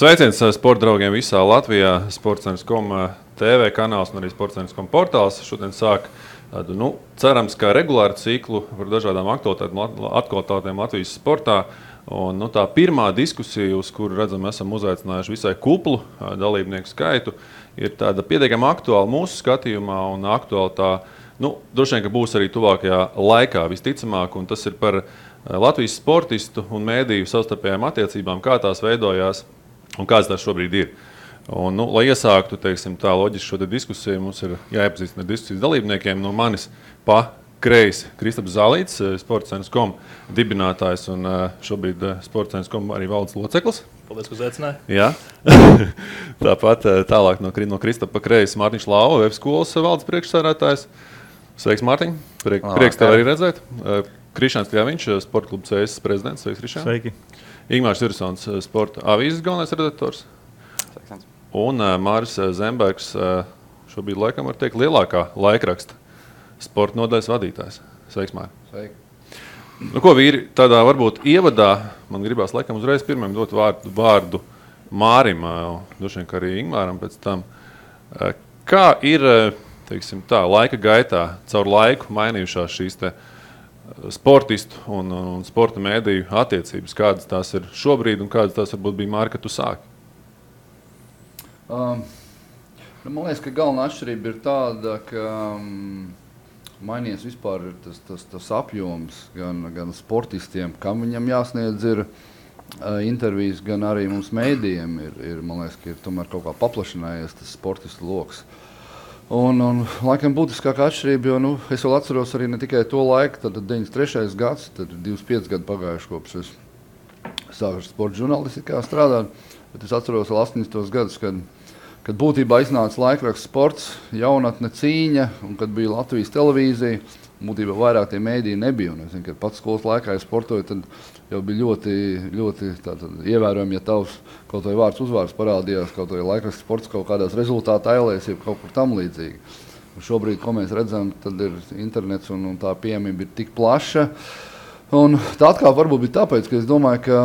Sveiciens sporta draugiem visā Latvijā, Sports.com TV kanāls un arī Sports.com portāls. Šodien sāk tādu, cerams, kā regulāru ciklu par dažādām aktualitātēm Latvijas sportā. Un, tā pirmā diskusija, uz kuru redzam, esam uzaicinājuši visai kuplu dalībnieku skaitu, ir tāda pietiekami aktuāla mūsu skatījumā un aktuāla tā, droši vien, ka būs arī tuvākajā laikā visticamāk, un tas ir par Latvijas sportistu un mēdīju savstarpējām attiecībām, kā tās veidojās un kāds tās šobrīd ir. Un, lai iesāktu, tā loģiski šo diskusiju, mums ir jāiepazīstina ar diskusijas dalībniekiem. No manis pa kreisi Kristaps Zālīts, Sports.com dibinātājs un šobrīd Sports.com arī valdes loceklis. Paldies, ka uzaicināji. Jā. Tāpat tālāk no Kristapa pa kreisi Mārtiņš Lauva, Web skolas valdes priekšsēdētājs. Sveiks, Mārtiņ. Prieks tev arī redzēt. Krišāns Kļaviņš, Sporta kluba CS prezidents. Sveiks, Krišān. Sveiki. Ingmārs Irsons, Sporta avīzes galvenais redaktors. Un Māris Zembergs, šobrīd laikam var teikt lielākā laikraksta sporta nodaļas vadītājs. Sveiks, Māri. Sveiki. Ko vīri, tādā varbūt ievadā, man gribās laikam uzreiz pirmajam dot vārdu Mārim, droši vien, ka arī Ingmāram pēc tam. Kā ir, laika gaitā, caur laiku mainījušās šīs sportistu un sporta mēdīju attiecības? Kādas tās ir šobrīd un kādas tās varbūt bija, Māri, kad tu sāki? Man liekas, ka galvenā atšķirība ir tāda, ka mainījies vispār tas apjoms gan sportistiem, kam viņam jāsniedz ir intervijas, gan arī mums mēdījiem man liekas, ka ir tomēr kaut kā paplašinājies tas sportistu loks. Un laikam būtiskākā atšķirība, jo es vēl atceros arī ne tikai to laiku, tad 93. gads, tad 25 gadi pagājuši kopš es sāku sporta žurnālistikā strādāt, bet es atceros vēl 80. gadus, kad būtībā iznāca laikraksts Sports, jaunatne cīņa, un kad bija Latvijas televīzija, būtībā vairāk tie mēdīji nebija. Un es zinu, kad pats skolas laikā, ja sportoju, tad jau bija ļoti ievērojami, ja tavs kaut vai vārds uzvārds parādījās, kaut vai laikraksts Sports kaut kādās rezultāta ailēs, ja kaut kur tam līdzīgi. Un šobrīd, ko mēs redzam, tad ir internets un tā pieejamība ir tik plaša. Un tā atkal varbūt bija tāpēc, ka es domāju, ka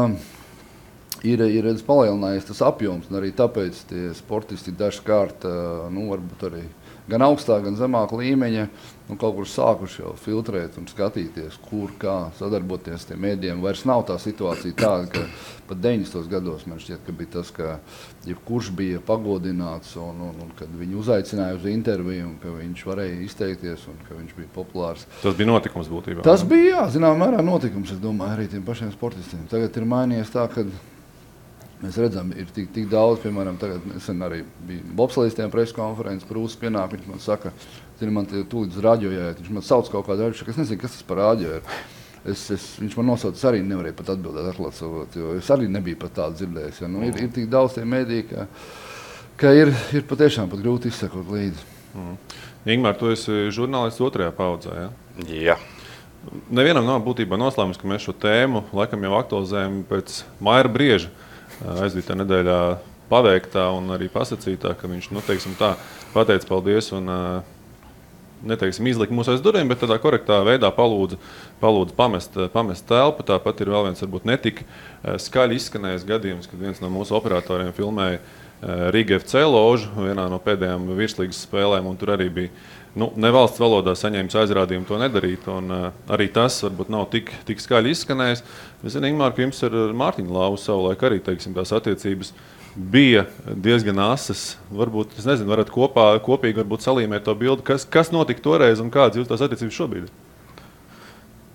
ir palielinājies tas apjoms, un arī tāpēc tie sportisti dažkārt, varbūt arī gan augstāk, gan zemāk līmeņa, kaut kur sākuši jau filtrēt un skatīties, kur kā sadarboties tiem mēdījiem. Vairs nav tā situācija tāda, ka pat 90. gados man šķiet, ka bija tas, ka jebkurš bija pagodināts un kad viņu uzaicināja uz interviju un ka viņš varēja izteikties un ka viņš bija populārs. Tas bija notikums būtībā? Tas bija, jā, zināmā mērā notikums, es domāju, arī tiem pašiem sportistiem. Tagad ir mainījies tā, ka mēs redzam, ir tik daudz, piemēram, tagad nesen arī bija bobslejistiem preskonferences, Prūsis pienāk, viņš man saka, man tūlīt uz radio jāiet, viņš man sauc kaut kādu rādīšu, ka es nezinu, kas tas par radio ir. Viņš man nosauc, arī nevarēja pat atbildēt, atklāt savot, jo es arī nebiju pat tādu dzirdējis. Ja? Ir tik daudz tie mēdī, ka ir patiešām pat grūti izsekot līdzi. Ingmār, tu esi žurnālists otrajā paudzē, ja? Jā. Nevienam nav būtībā noslēmums, ka mēs šo tēmu laikam jau aktualizējam pēc Maira Brieža aizvītā nedēļā paveiktā un arī pasacītā, ka viņš, pateica paldies un izlika mūs aiz durvīm, bet tādā korektā veidā palūdza pamest telpu. Tāpat ir vēl viens, varbūt netik skaļi izskanējis gadījums, kad viens no mūsu operatoriem filmēja Riga FC ložu vienā no pēdējām virslīgas spēlēm, un tur arī bija nevalsts valodā saņēmis aizrādījumu to nedarīt, un arī tas varbūt nav tik skaļi izskanējis. Es zinu, Ingmār, ka jums ar Mārtiņu Lauvu savulaik arī, tās attiecības bija diezgan asas. Varbūt, es nezinu, varat kopīgi varbūt salīmēt to bildi, kas notika toreiz un kādas jūs tās attiecības šobrīd?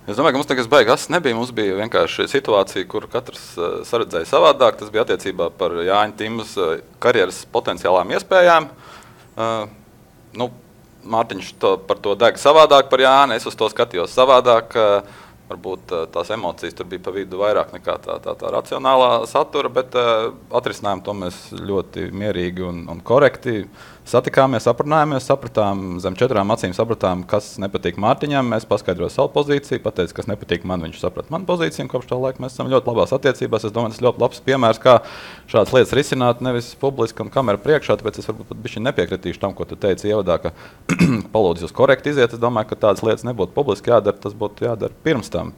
Es domāju, ka mums tagad baigi asas nebija. Mums bija vienkārši situācija, kur katrs saredzēja savādāk. Tas bija attiecībā par Jāņa Timas karjeras potenciālām iespējām. Mārtiņš par to deg savādāk par Jāni, es uz to skatījos savādāk. Varbūt tās emocijas tur bija pa vidu vairāk nekā tā racionālā satura, bet atrisinājām to mēs ļoti mierīgi un korekti. satikāmies, aprunājāmies, sapratām, zem 4 acīm sapratām, kas nepatīk Mārtiņam. Mēs paskaidrojām savu pozīciju, pateicu, kas nepatīk man. Viņš saprata manu pozīciju, un kopš tā laika mēs esam ļoti labās attiecībās. Es domāju, tas ir ļoti labs piemērs, kā šādas lietas risināt, nevis publiski un kamera priekšā. Tāpēc es varbūt pat bišķi nepiekritīšu tam, ko tu teici ievadā, ka palūdzu jūs korekti iziet. Es domāju, ka tādas lietas nebūtu publiski jādara, tas būtu jādara pirms tam.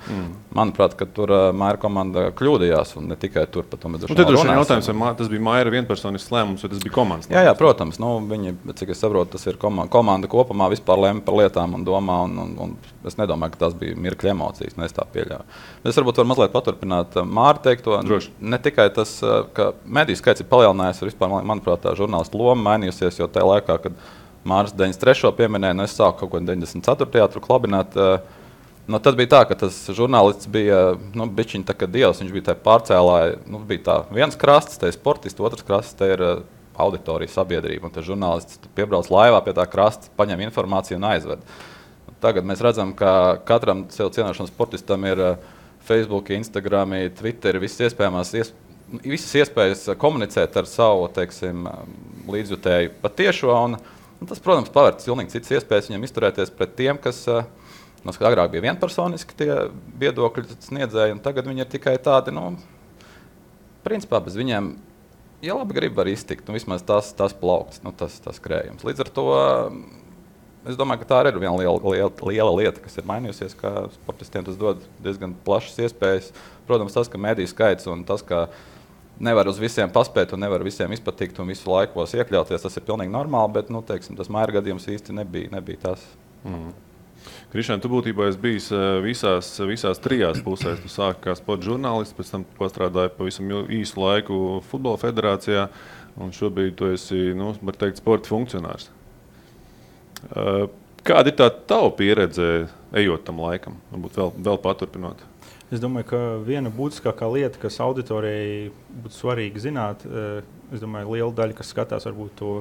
Manuprāt, ka tur Maira komanda kļūdījās, un ne tikai tur, pat tomēr jautājums, vai tas bija Maira vienpersonisks lēmums, vai tas bija komandas lēmums? Jā, protams. Viņi, cik es saprotu, tas ir komanda kopumā vispār lēma par lietām un domā, un es nedomāju, ka tas bija mirkļa emocijas, es tā pieļauju. Es varbūt varu mazliet paturpināt Māri teikto. Droši. Ne tikai tas, ka mediju skaits ir palielinājies, vispār, manuprāt, tā žurnālistu loma mainījusies, jo tajā laikā, kad Māris 93. pieminēja, es sāku kaut ko 94. tur klabināt. Tad bija tā, ka tas žurnālists bija bišķiņ tā kā dievs, viņš bija tā pārcēlāja, bija tā viens krasts, te ir sportists, otrs krasts, te ir auditorija, sabiedrība, un tas žurnālists piebrauc laivā pie tā krasta, paņem informāciju un aizved. Tagad mēs redzam, ka katram sev cienošanas sportistam ir Facebook, Instagram, Twitter, visas iespējas komunicēt ar savu, teiksim, līdzjutēju patiešo, un tas, protams, pavērt pilnīgi citas iespējas viņam izturēties pret tiem, kas agrāk bija vienpersoniski tie viedokļi sniedzēji, un tagad viņi ir tikai tādi, principā bez viņiem, ja labi grib, var iztikt, vismaz tas plaukts, tas krējums. Līdz ar to, es domāju, ka tā arī ir viena liela lieta, kas ir mainījusies, ka sportistiem tas dod diezgan plašas iespējas. Protams, tas, ka mediju skaits un tas, ka nevar uz visiem paspēt un nevar visiem izpatikt un visu laikos iekļauties, tas ir pilnīgi normāli, bet, teiksim, tas Maira gadījums īsti nebija tas. Krišān, tu būtībā esi bijis visās 3 pusēs. Tu sāki kā sporta žurnālists, pēc tam pastrādāji pavisam īsu laiku Futbola federācijā, un šobrīd tu esi, var teikt, sporta funkcionārs. Kāda ir tā tava pieredze, ejot tam laikam? Varbūt vēl paturpinot. Es domāju, ka viena būtiskākā lieta, kas auditorijai būtu svarīgi zināt, es domāju, liela daļa, kas skatās, varbūt to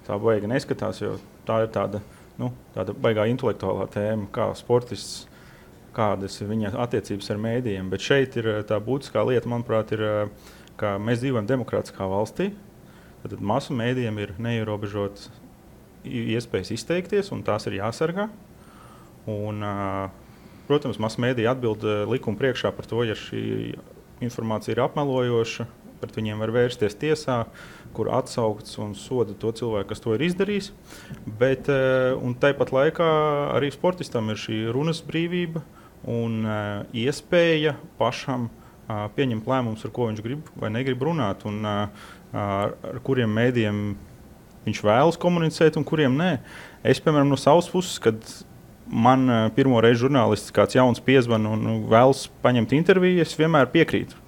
tā baigi neskatās, jo tā ir tāda baigā intelektuālā tēma, kā sportists, kādas ir viņa attiecības ar mēdījiem. Bet šeit ir tā būtiskā lieta, manuprāt, ir, ka mēs dzīvojam demokrātiskā valstī. Tad masu mēdījiem ir neierobežotas iespējas izteikties, un tās ir jāsargā. Un, protams, masu mēdīji atbild likuma priekšā par to, ja šī informācija ir apmelojoša, pret viņiem var vērsties tiesā, kur atsaukts un soda to cilvēku, kas to ir izdarījis. Bet, un tāpat laikā arī sportistam ir šī runas brīvība un iespēja pašam pieņemt lēmumus, ar ko viņš grib vai negrib runāt, un ar kuriem mēdījiem viņš vēlas komunicēt un kuriem nē. Es, piemēram, no savas puses, kad man pirmo reizi žurnālists kāds jauns piezvan un vēlas paņemt interviju, es vienmēr piekrītu.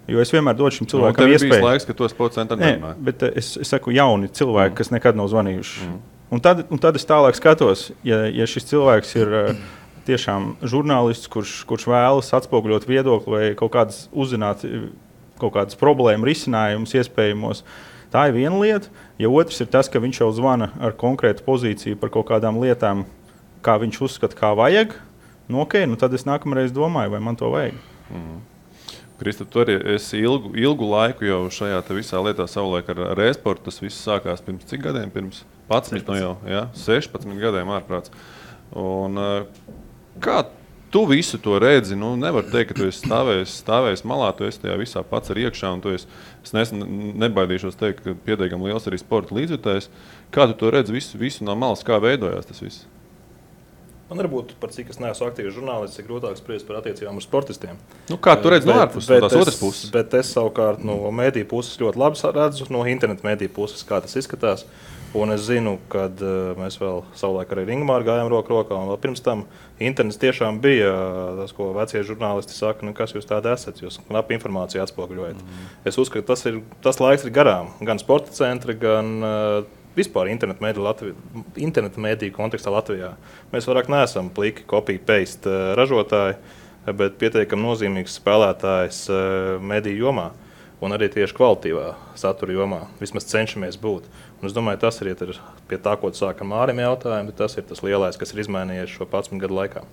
Jo es vienmēr dodu šim cilvēkam iespēju. Tev ir bijis laiks, ka to sporta centrā nerunāji. Bet es saku jauni cilvēki, kas nekad nav zvanījuši. Un tad es tālāk skatos, ja šis cilvēks ir tiešām žurnālists, kurš vēlas atspoguļot viedokli vai kaut kādas uzzināt kaut kādas problēmu risinājumus iespējamos. Tā ir viena lieta. Ja otrs ir tas, ka viņš jau zvana ar konkrētu pozīciju par kaut kādām lietām, kā viņš uzskata, kā vajag, tad es nākamreiz domāju, vai man to vajag. Krista, tu arī esi ilgu laiku jau šajā visā lietā savulaik ar e-sportu. Tas viss sākās pirms cik gadiem? Pirms 11 jau, ja? 16 gadiem ārprāts. Un kā tu visu to redzi? Nevar teikt, ka tu esi stāvējis malā, tu esi tajā visā pats ar iekšā, un tu esi, es nebaidīšos teikt, ka pietiekami liels arī sporta līdzjutējs. Kā tu to redzi visu no malas, kā veidojās tas viss? Man varbūt par cik es neesmu aktīvs žurnālists, ir grūtāk spriest par attiecībām ar sportistiem. Kā tu redzi no ārpuses, no tās otras puses? Bet es savukārt no mediju puses ļoti labi redzu, no interneta mediju puses, kā tas izskatās. Un es zinu, kad mēs vēl savulaik arī Ringmāru gājām roku rokā, un vēl pirms tam internets tiešām bija tas, ko vecie žurnālisti saka, kas jūs tādi esat, jūs knapi informāciju atspoguļojat. Es uzskatu, tas laiks ir garām, gan sporta centri, gan vispār internetu mēdīju kontekstā Latvijā. Mēs vairāk neesam pliki copy-paste ražotāji, bet pietiekami nozīmīgs spēlētājs mēdīju jomā un arī tieši kvalitīvā satura jomā. Vismaz cenšamies būt. Un es domāju, tas ir pie tā, ko tu sāki ar Mārim jautājumu, bet tas ir tas lielais, kas ir izmainījies šo 11 gadu laikā.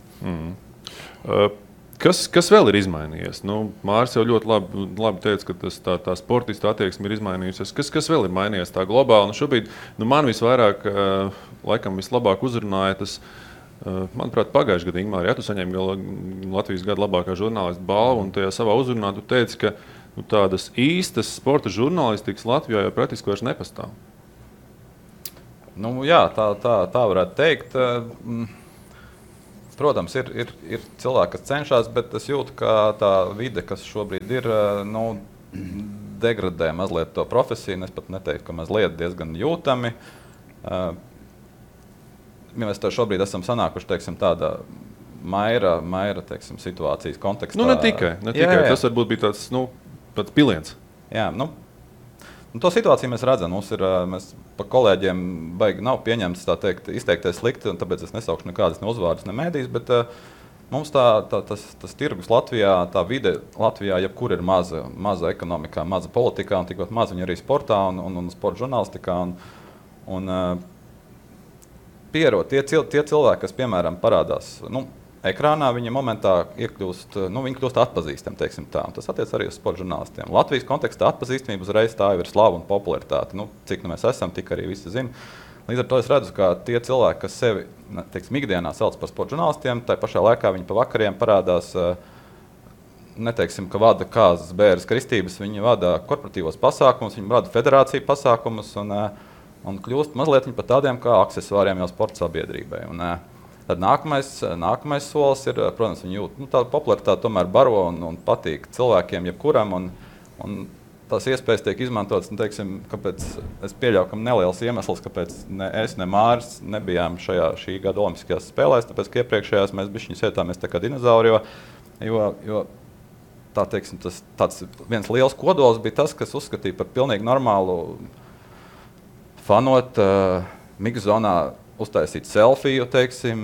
Kas vēl ir izmainījies? Māris jau ļoti labi teica, ka tā sportista attieksme ir izmainījusies. Kas vēl ir mainījies tā globāli? Šobrīd man visvairāk, laikam vislabāk uzrunāja tas, manuprāt, pagājušajā gadā, Ingmār, ja tu saņēmi Latvijas gada labākā žurnālista balvu, un tajā savā uzrunā tu teici, ka tādas īstas sporta žurnālistikas Latvijā jau praktiski vairs nepastāv. Jā, tā varētu teikt. Protams, ir cilvēki, kas cenšas, bet es jūtu, ka tā vide, kas šobrīd ir, degradē mazliet to profesiju. Es pat neteiktu, ka mazliet diezgan jūtami. Ja mēs šobrīd esam sanākuši, teiksim, tādā maira teiksim, situācijas kontekstā. Ne tikai. Jā. Tas varbūt bija tāds piliens. Jā, to situāciju mēs redzam. Mēs pa kolēģiem baigi nav pieņemts izteikties slikti, un tāpēc es nesaukšu nekādas ne uzvārdas, ne mēdīs, bet mums tas tirgus Latvijā, tā vide Latvijā, jebkur ir maza ekonomikā, maza politikā, un tikpat maz viņa arī sportā un sporta žurnālistikā. Pierod tie cilvēki, kas, piemēram, parādās ekrānā, viņi momentā viņi kļūst atpazīstami, teiksim tā. Un tas attiec arī uz sporta žurnālistiem. Latvijas kontekstā atpazīstamība uzreiz tā jau ir slava un popularitāte. Cik mēs esam, tik arī visi zina. Līdz ar to es redzu, ka tie cilvēki, kas sevi, teiksim, ikdienā sauc par sporta žurnālistiem, tai pašā laikā viņi pa vakariem parādās, neteiksim, ka vada kāzas, bēres, kristības, viņi vada korporatīvos pasākumus, viņi vada federāciju pasākumus un kļūst mazliet par tādiem kā aksesuāriem jau sporta sabiedrībai. Tad nākamais solis ir, protams, viņi jūt, tāda popularitāte tomēr baro un patīk cilvēkiem, jebkuram, un tās iespējas tiek izmantotas, teiksim, kāpēc es pieļauju, ka neliels iemesls, kāpēc ne es, ne Māris nebijām šī gada olimpiskajās spēlēs, tāpēc, ka iepriekšējās mēs bišķiņi sētāmies tā kā dinozauri, jo tā, teiksim, tāds viens liels kodols bija tas, kas uzskatīja par pilnīgi normālu fanot mikzonā, uztaisīt selfiju, teiksim.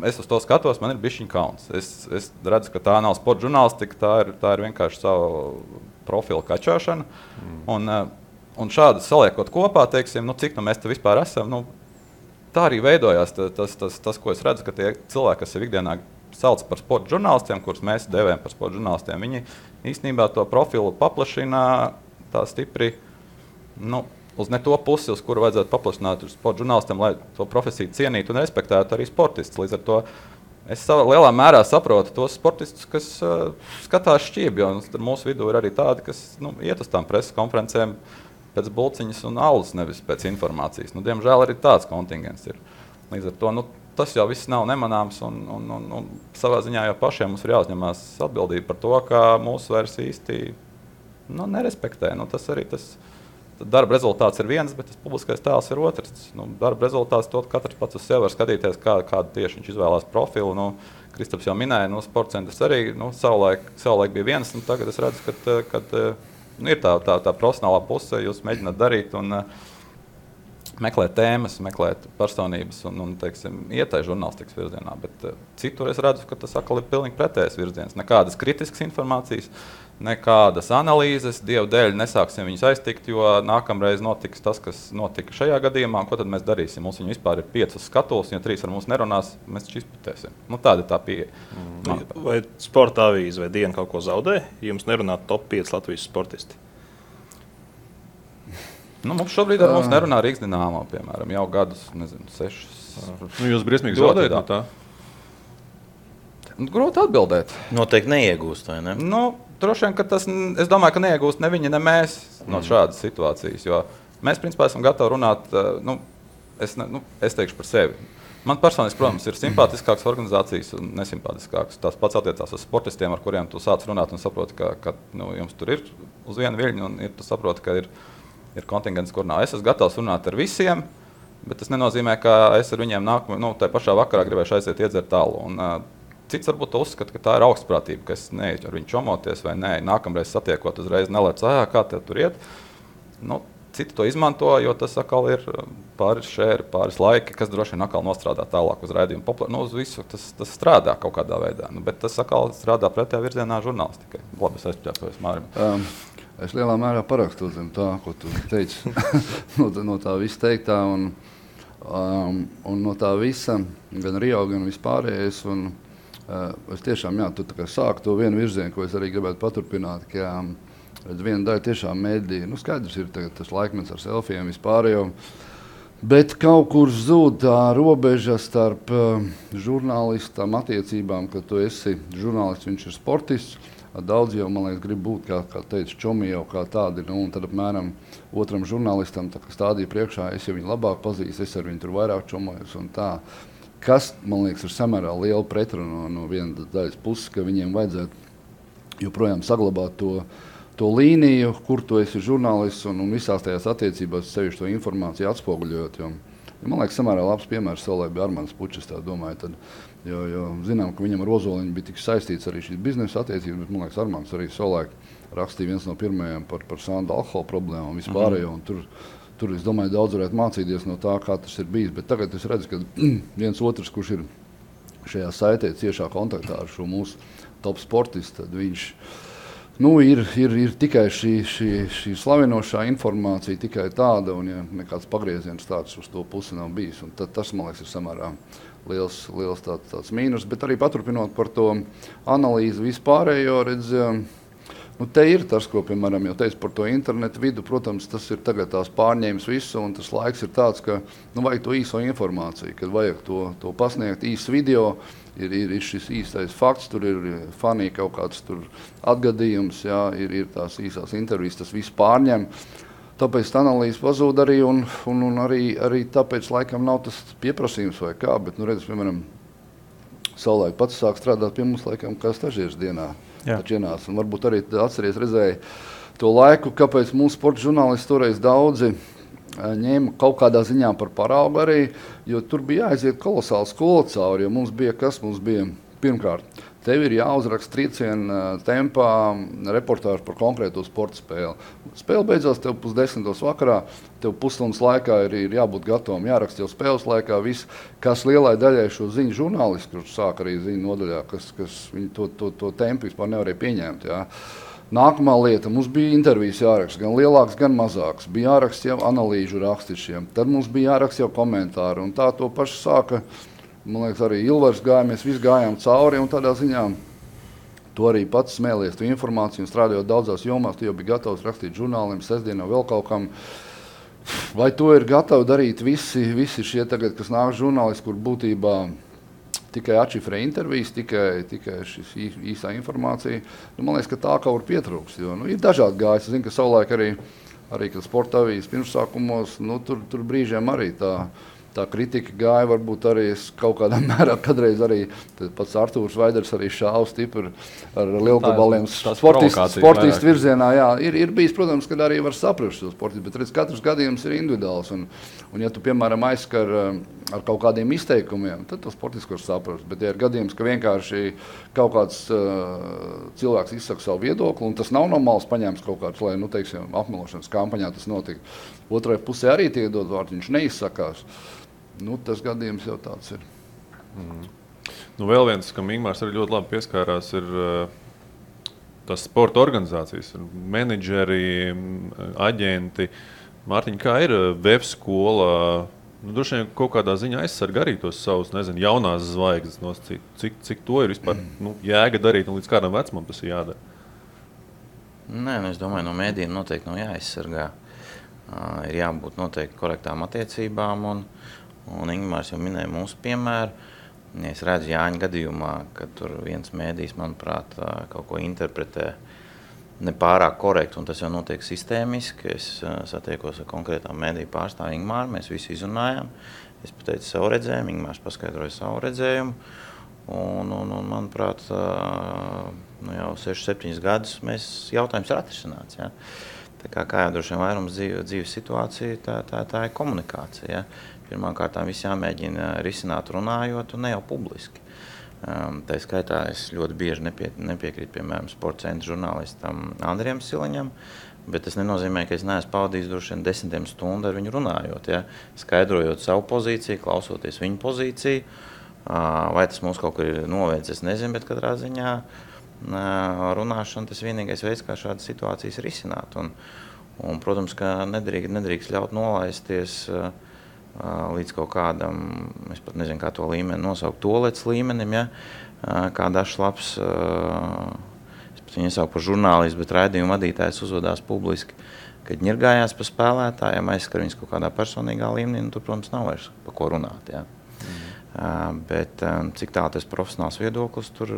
Es uz to skatos, man ir bišķiņ kauns. Es redzu, ka tā nav sporta žurnālistika, tā ir vienkārši savu profilu kačāšana. Un šādi saliekot kopā, teiksim, cik mēs te vispār esam, tā arī veidojās tas, ko es redzu, ka tie cilvēki, kas ir ikdienā sauc par sporta žurnālistiem, kurus mēs devējam par sporta žurnālistiem, viņi īstenībā to profilu paplašina tā stipri, uz ne to pusi, uz kuru vajadzētu paplašināt sporta žurnālistiem, lai to profesiju cienītu un respektētu arī sportistus. Līdz ar to es lielā mērā saprotu tos sportistus, kas skatās šķībi, jo mūsu vidū ir arī tādi, kas iet uz tām preses konferencēm pēc bulciņas un alus, nevis pēc informācijas. Diemžēl arī tāds kontingents ir. Līdz ar to tas jau viss nav nemanāms un savā ziņā jau pašiem mums ir jāuzņemās atbildība par to, ka mūsu vairs īsti nerespektē. Tas arī tas darba rezultāts ir viens, bet tas publiskais tēls ir otrs. Darba rezultāts to katrs pats uz sevi var skatīties, kādu tieši viņš izvēlās profilu. Kristaps jau minēja, sporta centrs arī savulaik bija viens, un tagad es redzu, ka ir tā profesionālā puse, jūs mēģināt darīt un meklēt tēmas, meklēt personības un teiksim, iet tai žurnālistikas virzienā. Bet citur es redzu, ka tas atkal ir pilnīgi pretējs virziens. Nekādas kritiskas informācijas, nekādas analīzes, Dievu dēļ nesāksim viņus aiztikt, jo nākamreiz notiks tas, kas notika šajā gadījumā. Ko tad mēs darīsim? Mums viņi vispār ir 5 skatuves, ja 3 ar mums nerunās, mēs taču izputēsim. Tāda ir tā pieeja. Vai sporta avīze vai Diena kaut ko zaudē, ja jums nerunā top 5 Latvijas sportisti? Mums šobrīd ar mums nerunā Rīgas Dinamo, piemēram, jau gadus, 6. Jūs briesmīgi zaudējat no tā? Grūti atbildēt. Noteikti neiegūst, vai ne? Droši vien, ka es domāju, ka neiegūst ne viņi, ne mēs no šādas situācijas, jo mēs, principā, esam gatavi runāt, es teikšu par sevi. Man personiski, protams, ir simpātiskākas organizācijas un nesimpātiskākas. Tās pats attiecās uz sportistiem, ar kuriem tu sāc runāt un saproti, ka jums tur ir uz vienu viļņu un tu saproti, ka ir kontingents, kur nav. Es esmu gatavs runāt ar visiem, bet tas nenozīmē, ka es ar viņiem tajā pašā vakarā gribēšu aiziet iedzert alu. Cits varbūt uzskata, ka tā ir augstprātība, ka es neeju ar viņu čomoties vai nē, nākamreiz satiekot uzreiz nelēc, kā tev tur iet. Citi to izmanto, jo tas atkal ir pāris šēri, pāris laiki, kas droši vien atkal nostrādā tālāk uz raidījumu. Uz visu tas strādā kaut kādā veidā, bet tas atkal strādā pretējā virzienā žurnālistikai. Labi, es aizpļākojos Mārim. Es lielā mērā parakstu zem tā, ko tu teici, no tā visa teiktā un no tā visa, gan Rio, gan vispārējais. Es tiešām, tu tā kā sāku to vienu virzienu, ko es arī gribētu paturpināt, ka viena daļa tiešām mēdī, skaidrs ir tas laikmets ar selfijiem vispārējo, bet kaut kur zūd tā robeža starp žurnālistam attiecībām, ka tu esi žurnālists, viņš ir sportists. Daudz jau, man liekas, grib būt, kā teica, čomi jau kā tādi, un tad apmēram otram žurnālistam stādīja priekšā, es jau viņu labāk pazīstu, es ar viņu tur vairāk čomojos un tā. Kas, man liekas, ir samērā liela pretruna no vienas daļas puses, ka viņiem vajadzētu joprojām saglabāt to līniju, kur tu esi žurnālists un visās tajās attiecībās sevišķi to informāciju atspoguļot. Man liekas, samērā labs piemērs savulaik bija Armands Pučs, tā domāju, tad, jo zinām, ka viņam ar Ozoliņu bija tik saistīts arī šīs biznesa attiecības, bet man liekas, Armands arī savulaik rakstīja viens no pirmajiem par sandu alkohola problēmu un vispārējo, un tur, es domāju, daudz varētu mācīties no tā, kā tas ir bijis, bet tagad es redzu, ka viens otrs, kurš ir šajā saitē ciešā kontaktā ar šo mūsu top sportistu, tad viņš ir tikai šī slavinošā informācija, tikai tāda, un ja nekāds pagrieziens tāds uz to pusi nav bijis. Un tas, man liekas, ir samērā liels tāds mīnus, bet arī paturpinot par to analīzi vispārējo, te ir tas, ko, piemēram, jau teicu par to internetu vidu, protams, tas ir tagad tās pārņēmis visu, un tas laiks ir tāds, ka vajag to īso informāciju, kad vajag to pasniegt īsts video, ir šis īstais fakts, tur ir fanī kaut kāds tur atgadījums, ir tās īsās intervijas, tas viss pārņem. Tāpēc analīze pazūd arī, un arī tāpēc laikam nav tas pieprasījums vai kā, bet, redz, piemēram, savulaik pats sāk strādāt pie mums laikam kā stažieris dienā. Taču ienāca, un varbūt arī redzēja to laiku, kāpēc mūsu sporta žurnālisti toreiz daudzi ņēma kaut kādā ziņā par paraugu arī, jo tur bija jāaiziet kolosāli skola cauri, jo mums bija pirmkārt, tev ir jāuzraksta trieciena tempā reportāžu par konkrēto sporta spēli. Spēle beidzās tev 9:30 vakarā, tev pusstundas laikā ir jābūt gatavam, jāraksta jau spēles laikā viss, kas lielai daļai šo ziņu žurnālisti, kurš sāk arī ziņu nodaļā, kas viņi to tempu vispār nevarēja pieņemt. Nākamā lieta, mums bija intervijas jāraksta, gan lielāks, gan mazāks. Bija jāraksta jau analīžu rakstišiem, tad mums bija jāraksta jau komentāri, un tā to pašu sāka, man liekas, arī Ilvars gāja, mēs visi gājām cauri, un tādā ziņā tu arī pats smēlies tu informāciju, un strādājot daudzās jomās, tu jau bija gatavs rakstīt žurnāliem, sestdienā vēl kaut kam. Vai to ir gatavi darīt visi šie tagad, kas nāk žurnālisti, kur būtībā tikai atšifrē intervijas, tikai šis īsā informācija. Man liekas, ka tā kaut kur pietrūks, jo ir dažādi gājis. Es zinu, ka savulaik arī kad sporta avīzes pirmsākumos, tur brīžiem arī tā kritika gāja, varbūt arī kaut kādā mērā kādreiz arī pats Artūrs Vaiders arī šāva stipri ar lielgabaliem sportistu virzienā. Ir bijis, protams, kad arī var saprast šo sportistu, bet redz, katrs gadījums ir individuāls. Un ja tu, piemēram, aizskar ar kaut kādiem izteikumiem, tad to sportistu var saprast. Bet ja ir gadījums, ka vienkārši kaut kāds cilvēks izsaka savu viedokli, un tas nav no malas paņēmis kaut kāds, lai, teiksim, apmelošanas kampaņā tas notika. Otrai pusē arī tiek dot vārdu, viņš neizsakās. Tas gadījums jau tāds ir. Vēl viens, kam Ingmārs arī ļoti labi pieskārās, ir tas sporta organizācijas, menedžeri, aģenti. Mārtiņ, kā ir web skola? Droši vien kaut kādā ziņā aizsarga arī tos savus, jaunās zvaigznes. Cik to ir vispār jēga darīt un līdz kādam vecumam tas ir jādara? Nē, es domāju, no mēdījiem noteikti nav jāaizsargā. Ir jābūt noteikti korektām attiecībām, un Ingmārs jau minēja mūsu piemēru. Ja es redzu Jāņa gadījumā, ka tur viens mēdījis, manuprāt, kaut ko interpretē nepārāk korekti, un tas jau notiek sistēmiski. Es satiekos ar konkrētām mēdīju pārstāvu Ingmāru, mēs visi izrunājām. Es pateicu savu redzējumu, Ingmārs paskaidroja savu redzējumu, un manuprāt, jau 6-7 gadus jautājums ir atrisināts. Ja? Kā jau droši vien vairums dzīves situācija, tā ir komunikācija. Ja? Pirmkārt, viss jāmēģina risināt runājot un ne jau publiski. Tā skaitā es ļoti bieži nepiekrītu, piemēram, sporta centra žurnālistam Andrijam Siliņam, bet tas nenozīmē, ka es neesmu pavadījis droši vien 10 stundu ar viņu runājot, ja? Skaidrojot savu pozīciju, klausoties viņu pozīciju. Vai tas mums kaut kur ir novēdz, es nezinu, bet katrā ziņā runāšana tas vienīgais veids, kā šādas situācijas risināt. Un protams, ka nedrīkst ļaut nolaisties līdz kaut kādam, es pat nezinu, kā to līmeni nosaukt, tolets līmenim, ja? kā dažs labs, es pat viņu iesauku par žurnālistu, bet raidījumu vadītājs uzvedās publiski, kad ņirgājās pa spēlētājiem, aizskar viņus kaut kādā personīgā līmenī, tur, protams, nav vairs pa ko runāt. Jā. Bet cik tā tas profesionāls viedoklis, tur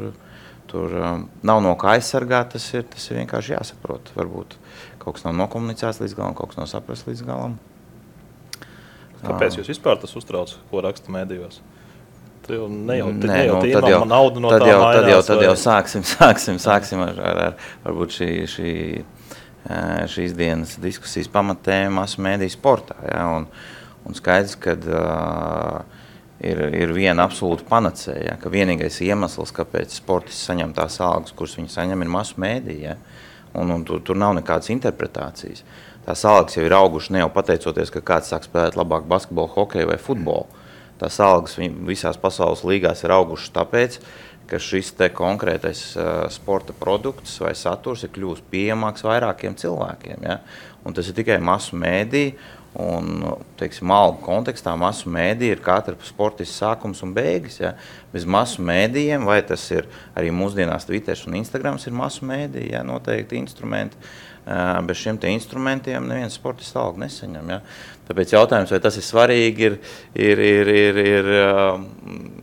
nav no kā aizsargāt, tas ir vienkārši jāsaprot. Varbūt kaut kas nav nokomunicēts līdz galam, kaut kas nav saprasts līdz galam. Kāpēc jūs vispār tas uztrauc, ko raksta medijos? Tad jau sāksim ar varbūt šīs dienas diskusijas pamatēma masu mediju sportā. Ja? Un skaidrs, ka ir viena absolūta panacēja, ka vienīgais iemesls, kāpēc sportisti saņem tās algas, kuras viņi saņem, ir masu mediju. Ja? Un tur nav nekādas interpretācijas. Tās algas jau ir augušas ne jau pateicoties, ka kāds sāk spēlēt labāk basketbolu, hokeju vai futbolu. Tās algas visās pasaules līgās ir augušas tāpēc, ka šis te konkrētais sporta produkts vai saturs ir kļūst pieejamāks vairākiem cilvēkiem. Ja? Un tas ir tikai masu mēdī, un, teiksim, algu kontekstā masu mēdī ir katra sportists sākums un beigas. Ja? Bez masu mēdījiem, vai tas ir arī mūsdienās Twitters un Instagrams ir masu mēdī, ja? Noteikti instrumenti. Bez šiem te instrumentiem neviens sportists algu nesaņem. Ja? Tāpēc jautājums, vai tas ir svarīgi, ir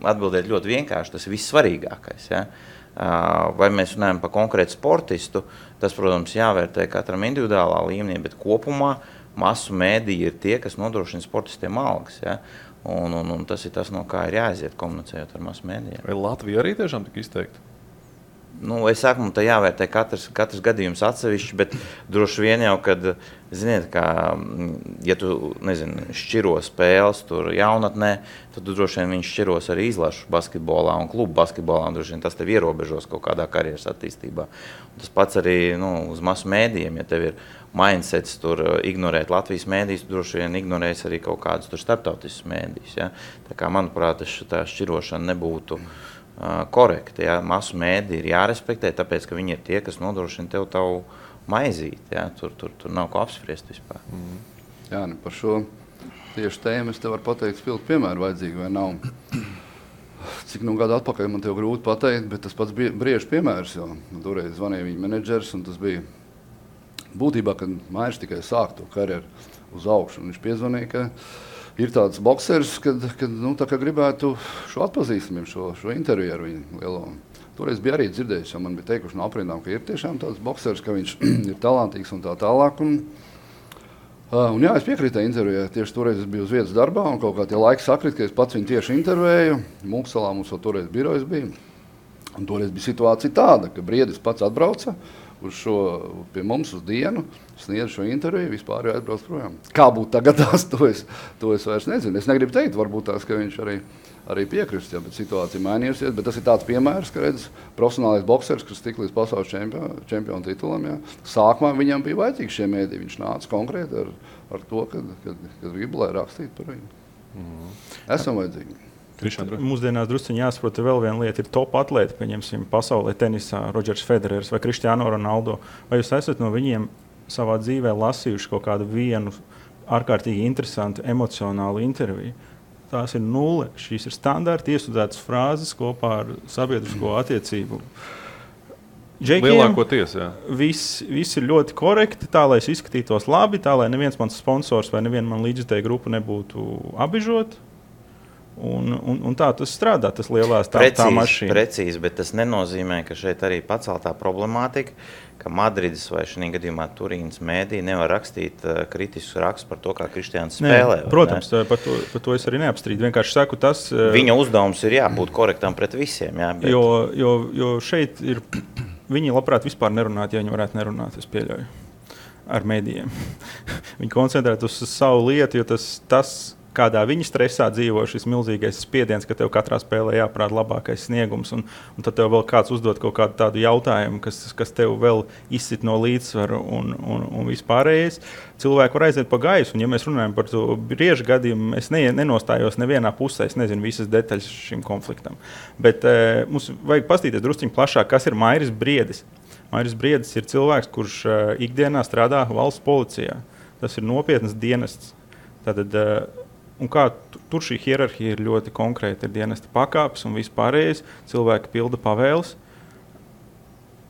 atbildēt ļoti vienkārši. Tas ir vissvarīgākais. Ja? Vai mēs runājam par konkrētu sportistu, tas, protams, jāvērtē katram individuālā līmenī, bet kopumā masu mēdīji ir tie, kas nodrošina sportistiem algas. Ja? Un tas ir tas, no kā ir jāaiziet komunicējot ar masu mēdījiem. Vai Latvija arī tiešām tik izteikti? Es saku, man tā jāvērtē katrs gadījums atsevišķi, bet droši vien jau, kad, ziniet, kā, ja tu, šķiro spēles tur jaunatnē, tad tu droši vien viņš šķiros arī izlašu basketbolā un klubu basketbolā, un droši vien tas tev ierobežos kaut kādā karjeras attīstībā. Un tas pats arī uz masu mēdījiem, ja tev ir mindsets tur ignorēt Latvijas mēdījus, tu droši vien ignorēs arī kaut kādus tur starptautiskus mēdījus. Ja? Tā kā, manuprāt, tā šķirošana nebūtu korekti. Ja? Masu mēdī ir jārespektē, tāpēc, ka viņi ir tie, kas nodrošina tev tavu maizīti. Ja? Tur nav ko apspriest vispār. Jā, par šo tieši tēmu es tev varu pateikt spilgtu piemēru vajadzīgi vai nav. Cik gadu atpakaļ man tev grūti pateikt, bet tas pats Brieža piemērs, jo toreiz zvanīja viņa menedžers, un tas bija būtībā, kad Mairs tikai sāk to karjeru uz augšu. Viņš piezvanīja, ka ir tāds boksers, kad tā kā gribētu šo atpazīstamību, šo interviju ar viņu lielo. Toreiz bija arī dzirdējis, jo man bija teikuši no aprindām, ka ir tiešām tāds boksers, ka viņš ir talantīgs un tā tālāk. Un jā, es piekrītu intervijai. Tieši toreiz es biju uz vietas darbā, un kaut kā tie laiki sakrit, ka es pats viņu tieši intervēju. Mūksalā mums jau toreiz birojas bija. Un toreiz bija situācija tāda, ka Briedis pats atbrauca pie mums uz dienu, sniedz šo interviju, vispār aizbrauc projām. Kā būtu tagadās, to es vairs nezinu. Es negribu teikt, varbūt tās, ka viņš arī piekrist, ja, bet situācija mainījusies. Bet tas ir tāds piemērs, ka redz, profesionālais boksers, kas tik līdz pasaules čempionu titulam, ja, sākumā viņam bija vajadzīgi šie mēdī. Viņš nāca konkrēti ar to, kad gribu, lai rakstītu par viņu. Esam vajadzīgi. Mūsdienās drusciņi jāsaprot, vēl viena lieta ir top atlēti, pieņemsim, pasaulē tenisā, Rodžers Federers vai Cristiano Ronaldo. Vai jūs esat no viņiem savā dzīvē lasījuši kaut kādu vienu ārkārtīgi interesantu emocionālu interviju? Tās ir nulle. Šīs ir standarti iestudētas frāzes kopā ar sabiedrisko attiecību. Lielākoties, jā. Viss ir ļoti korekti, tā, lai es izskatītos labi, tā, lai neviens mans sponsors vai neviena man līdzjutēja grupa nebūtu abižot. Un tā tas strādā, tas lielās tā mašīna. Precīzi, bet tas nenozīmē, ka šeit arī paceltā problemātika, ka Madrides vai šī gadījumā Turīnas mēdī nevar rakstīt kritiskus rakstus par to, kā Kristiāns spēlē. Protams, par to es arī neapstrīdu. Vienkārši saku tas... Viņa uzdevums ir jābūt korektam pret visiem. Jā, bet... jo šeit ir... Viņi labprāt vispār nerunāt, ja viņi varētu nerunāt, es pieļauju, ar mēdījiem. Viņi koncentrēt uz savu lietu, jo tas kādā viņi stresā dzīvo, šis milzīgais spiediens, ka tev katrā spēlē jāprāda labākais sniegums, un tad tev vēl kāds uzdod kaut kādu tādu jautājumu, kas tev vēl izsit no līdzsvaru un vispārējais. Cilvēki var aiziet pa gaisu, un ja mēs runājam par to Brieža gadījumu, es nenostājos nevienā pusē, es nezinu visas detaļas šim konfliktam. Bet mums vajag pastīties drusciņi plašāk, kas ir Mairis Briedis. Mairis Briedis ir cilvēks, kurš ikdienā strādā valsts policijā. Tas ir nopietnas dienests. Tātad un kā tur šī hierarhija ir ļoti konkrēta, ir dienesta pakāpes un vispārējais, cilvēki pilda pavēles.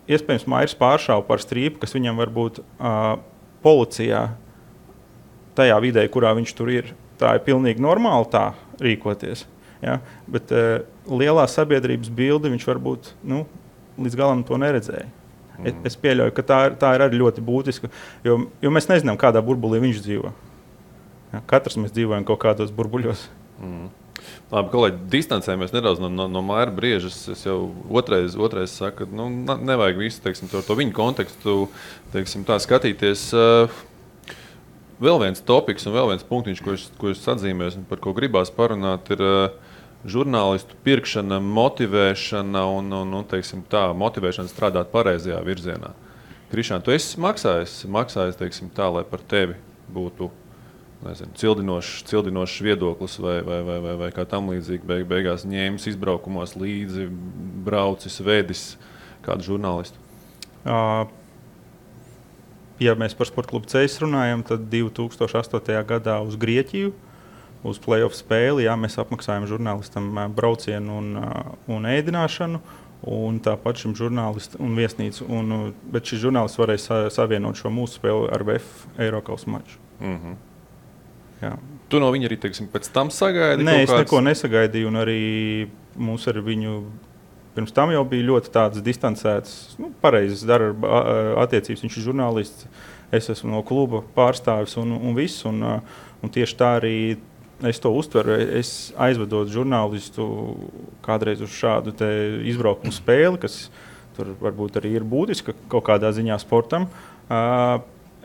Iespējams, Mairis pāršāva par strīpu, kas viņam varbūt policijā, tajā vidē, kurā viņš tur ir, tā ir pilnīgi normāli tā rīkoties. Ja? Bet lielā sabiedrības bildi viņš varbūt līdz galam to neredzēja. Es pieļauju, ka tā ir arī ļoti būtiska, jo mēs nezinām, kādā burbulī viņš dzīvo. Ja? Katrs mēs dzīvojam kaut kādos burbuļos. Labi, kolēģi, distancējamies nedaudz no Maira Briežas. Es jau otrais saku, ka nevajag visu, teiksim, to viņu kontekstu, teiksim, tā skatīties. Vēl viens topiks un vēl viens punktiņš, ko es atzīmēs un par ko gribās parunāt, ir žurnālistu pirkšana, motivēšana un teiksim, tā, motivēšana strādāt pareizajā virzienā. Krišān, tu esi maksājis teiksim, tā, lai par tevi būtu cildinošs viedoklis vai kā tam līdzīgi beigās ņēmis izbraukumos līdzi, braucis, vedis kādu žurnālistu? Ja mēs par Sporta klubu Ceļus runājam, tad 2008. gadā uz Grieķiju, uz play-off spēli, mēs apmaksājam žurnālistam braucienu un ēdināšanu, un tāpat šim žurnālistam un viesnīcu. Bet šis žurnālists varēja savienot šo mūsu spēli ar VF Eirokausa maču. Jā. Tu no viņa arī, teiksim, pēc tam sagaidi? Nē, es neko nesagaidīju, un arī mūs ar viņu pirms tam jau bija ļoti tādas distancētas, pareizas darba attiecības. Viņš ir žurnālists, es esmu no kluba pārstāvis un viss, un tieši tā arī es to uztveru. Es aizvedot žurnālistu kādreiz uz šādu te izbraukumu spēli, kas tur varbūt arī ir būtiska kaut kādā ziņā sportam.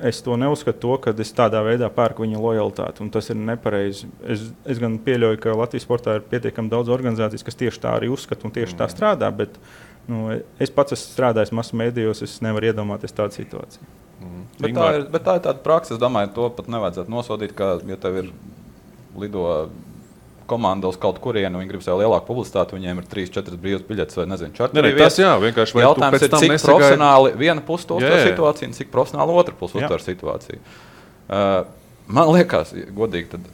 Es to neuzskatu, ka es tādā veidā pērku viņa lojalitāti, un tas ir nepareizi. Es gan pieļauju, ka Latvijas sportā ir pietiekami daudz organizācijas, kas tieši tā arī uzskata un tieši tā strādā, bet es pats esmu strādājis masu mēdījos, es nevaru iedomāties tādu situāciju. Bet tā ir tāda praksa, es domāju, to pat nevajadzētu nosodīt, ka, ja tev ir lido komanda uz kaut kurienu, viņi grib sev lielāku publicitāti, viņiem ir 3-4 brīvas biļetes vai nezinu, čarteri vietas. Tas jā, vienkārši vai jautājums tu pēc tam ir, cik profesionāli viena puse to uztver situāciju un cik profesionāli otra puse uztver situāciju. Man liekas, godīgi, tad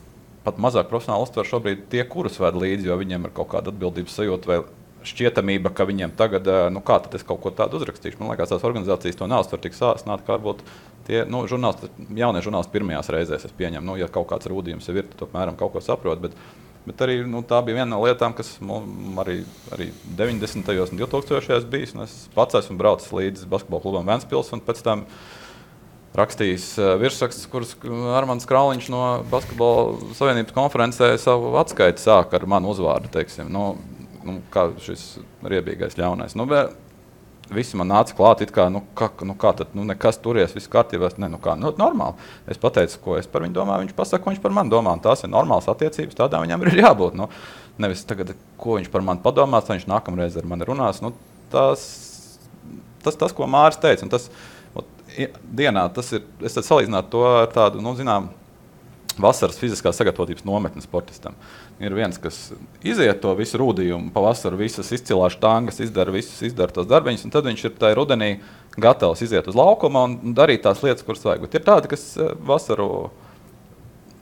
pat mazāk profesionāli uztver šobrīd tie, kurus ved līdzi, jo viņiem ir kaut kāda atbildības sajūta vai šķietamība, ka viņiem tagad, kā tad es kaut ko tādu uzrakstīšu. Man liekas, tās organizācijas to neuztver tik sāsnāt, kā varbūt tie jaunie žurnālisti pirmajās reizēs, es pieņemu, ja kaut kāds rūdījums jau ir, tad apmēram kaut ko saprot, bet arī tā bija viena no lietām, kas arī 90. un 2000. bijis. Es pats esmu braucis līdz basketbola klubam Ventspils un pēc tam rakstījis virsrakstus, kurus Armands Krauliņš no Basketbola Savienības konferencē savu atskaiti sāk ar manu uzvārdu, teiksim. Kā šis riebīgais ļaunais. Visi man nāca klāt, it kā, kā tad, nekas turies, viss kārtībā. Normāli. Es pateicu, ko es par viņu domāju, viņš pasaka, ko viņš par mani domā. Tās ir normālas attiecības, tādām viņam ir jābūt. Nevis tagad, ko viņš par mani padomās, tad viņš nākamreiz ar mani runās. Tas, ko Māris teica, un tas dienā, tas ir, es tad salīdzinātu to ar tādu, zinām, vasaras fiziskās sagatavotības nometni sportistam. Ir viens, kas iziet to visu rūdījumu, pavasaru visas izcilās štangas, izdara tos darbiņus, un tad viņš ir tajā rudenī gatavs iziet uz laukuma un darīt tās lietas, kuras vajag. Bet ir tādi, kas vasaru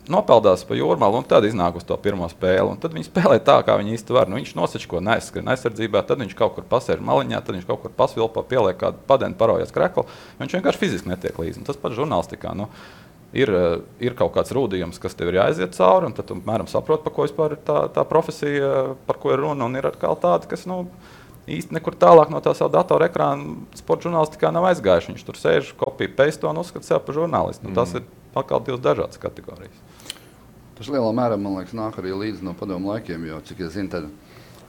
nopeldās pa jūrmalu un tad iznāk uz to pirmo spēli. Un tad viņi spēlē tā, kā viņi īsti var. Viņš nosačko neaizskrien aizsardzībā, tad viņš kaut kur pasēž maliņā, tad viņš kaut kur pasvilpo, pieliek kādu padeni, parojas kreklu. Viņš vienkārši fiziski netiek līdzi. Un tas pat žurnālistikā. Ir kaut kāds rūdījums, kas tev ir jāaiziet cauri, un tad tu mēram saproti, par ko vispār ir tā profesija, par ko ir runa, un ir atkal tādi, kas īsti nekur tālāk no tā savu datoru ekrāna sporta žurnālistikā nav aizgājuši. Viņš tur sēž, kopija paste un uzskata sev par žurnālistu. Tas ir atkal divas dažādas kategorijas. Tas lielā mērā, man liekas, nāk arī līdzi no padomu laikiem, jo, cik es zinu, tad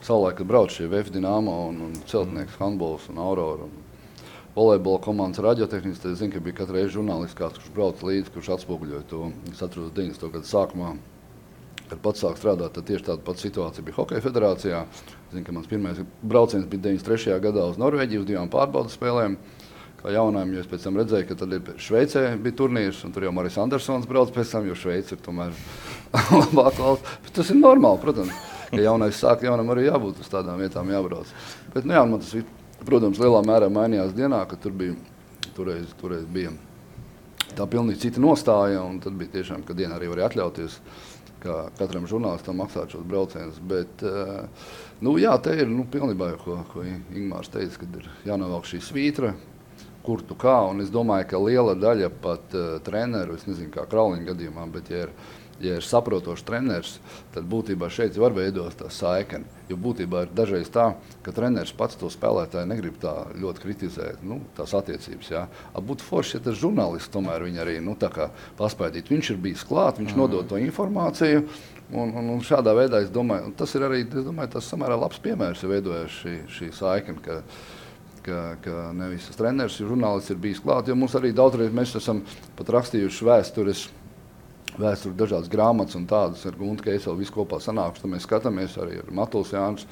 savulaik, kad brauc šie VF Dinamo un Celtnieks, handbols un Aurora un volejbola komandas radiotehnikas, tad es zinu, ka bija katru reizi žurnālists kāds, kurš brauc līdzi, kurš atspoguļoja to. Es atceros 90. gadu sākumā, kad pats sāk strādāt, tad tieši tāda pati situācija bija Hokeja federācijā. Es zinu, ka mans pirmais brauciens bija 93. gadā uz Norvēģiju, uz 2 pārbaudas spēlēm. Kā jaunājiem, jo es pēc tam redzēju, ka tad Šveicē bija turnīrs, un tur jau Maris Andersons brauc pēc tam, jo Šveica ir tomēr labāk valsts. Bet tas ir normāli, protams, ka jaunais sāk, jaunam arī jābūt uz tādām vietām jābrauc. Bet, man tas, protams, lielā mērā mainījās dienā, ka toreiz bija tā pilnīgi cita nostāja, un tad bija tiešām, ka dienā arī varēja atļauties kā katram žurnālistam maksāt šos braucienus. Bet, jā, te ir pilnībā, ko Ingmārs teica, kad ir jānovelk šī svītra, kur tu kā, un es domāju, ka liela daļa pat treneru, es nezinu, kā Krauliņa gadījumā, bet ja ir saprotošs treneris, tad būtībā šeit var veidot tā saikni. Jo būtībā ir dažreiz tā, ka treneris pats to spēlētāju negrib tā ļoti kritizēt, tās attiecības. Jā. Būtu forši, ja tas žurnālists tomēr viņu arī tā kā paspēdīt. Viņš ir bijis klāt, viņš nodod to informāciju, un šādā veidā, es domāju, tas ir arī, tas samērā labs piemērs, ja veidojas šī saikni, ka nevis tas treneris, žurnālists ir bijis klāt, jo mums arī daudzreiz mēs esam pat rakstījuši vēsturi dažādas grāmatas un tādas ar Guntu Keiselu visu kopā sanākuši, tad mēs skatāmies arī ar Matuls Jānis.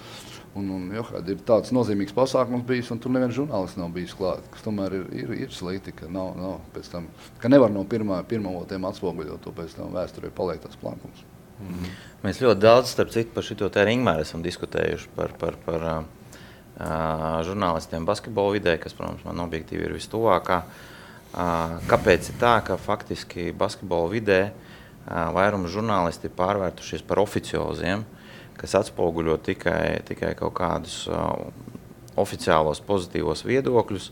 Ir tāds nozīmīgs pasākums bijis, un tur neviens žurnālists nav bijis klāt, kas tomēr ir slikti, ka nav pēc tam, ka nevar no pirmavotiem atspoguļot to pēc tam vēsturē paliek tas plankums. Mēs ļoti daudz, starp citu, par šito te Ingmāru esam diskutējuši par žurnālistiem basketbola vidē, kas, protams, man objektīvi ir vistuvākā. Kāpēc ir tā, ka faktiski basketbola vidē vairums žurnālisti ir pārvērtušies par oficioziem, kas atspoguļo tikai kaut kādus oficiālos pozitīvos viedokļus,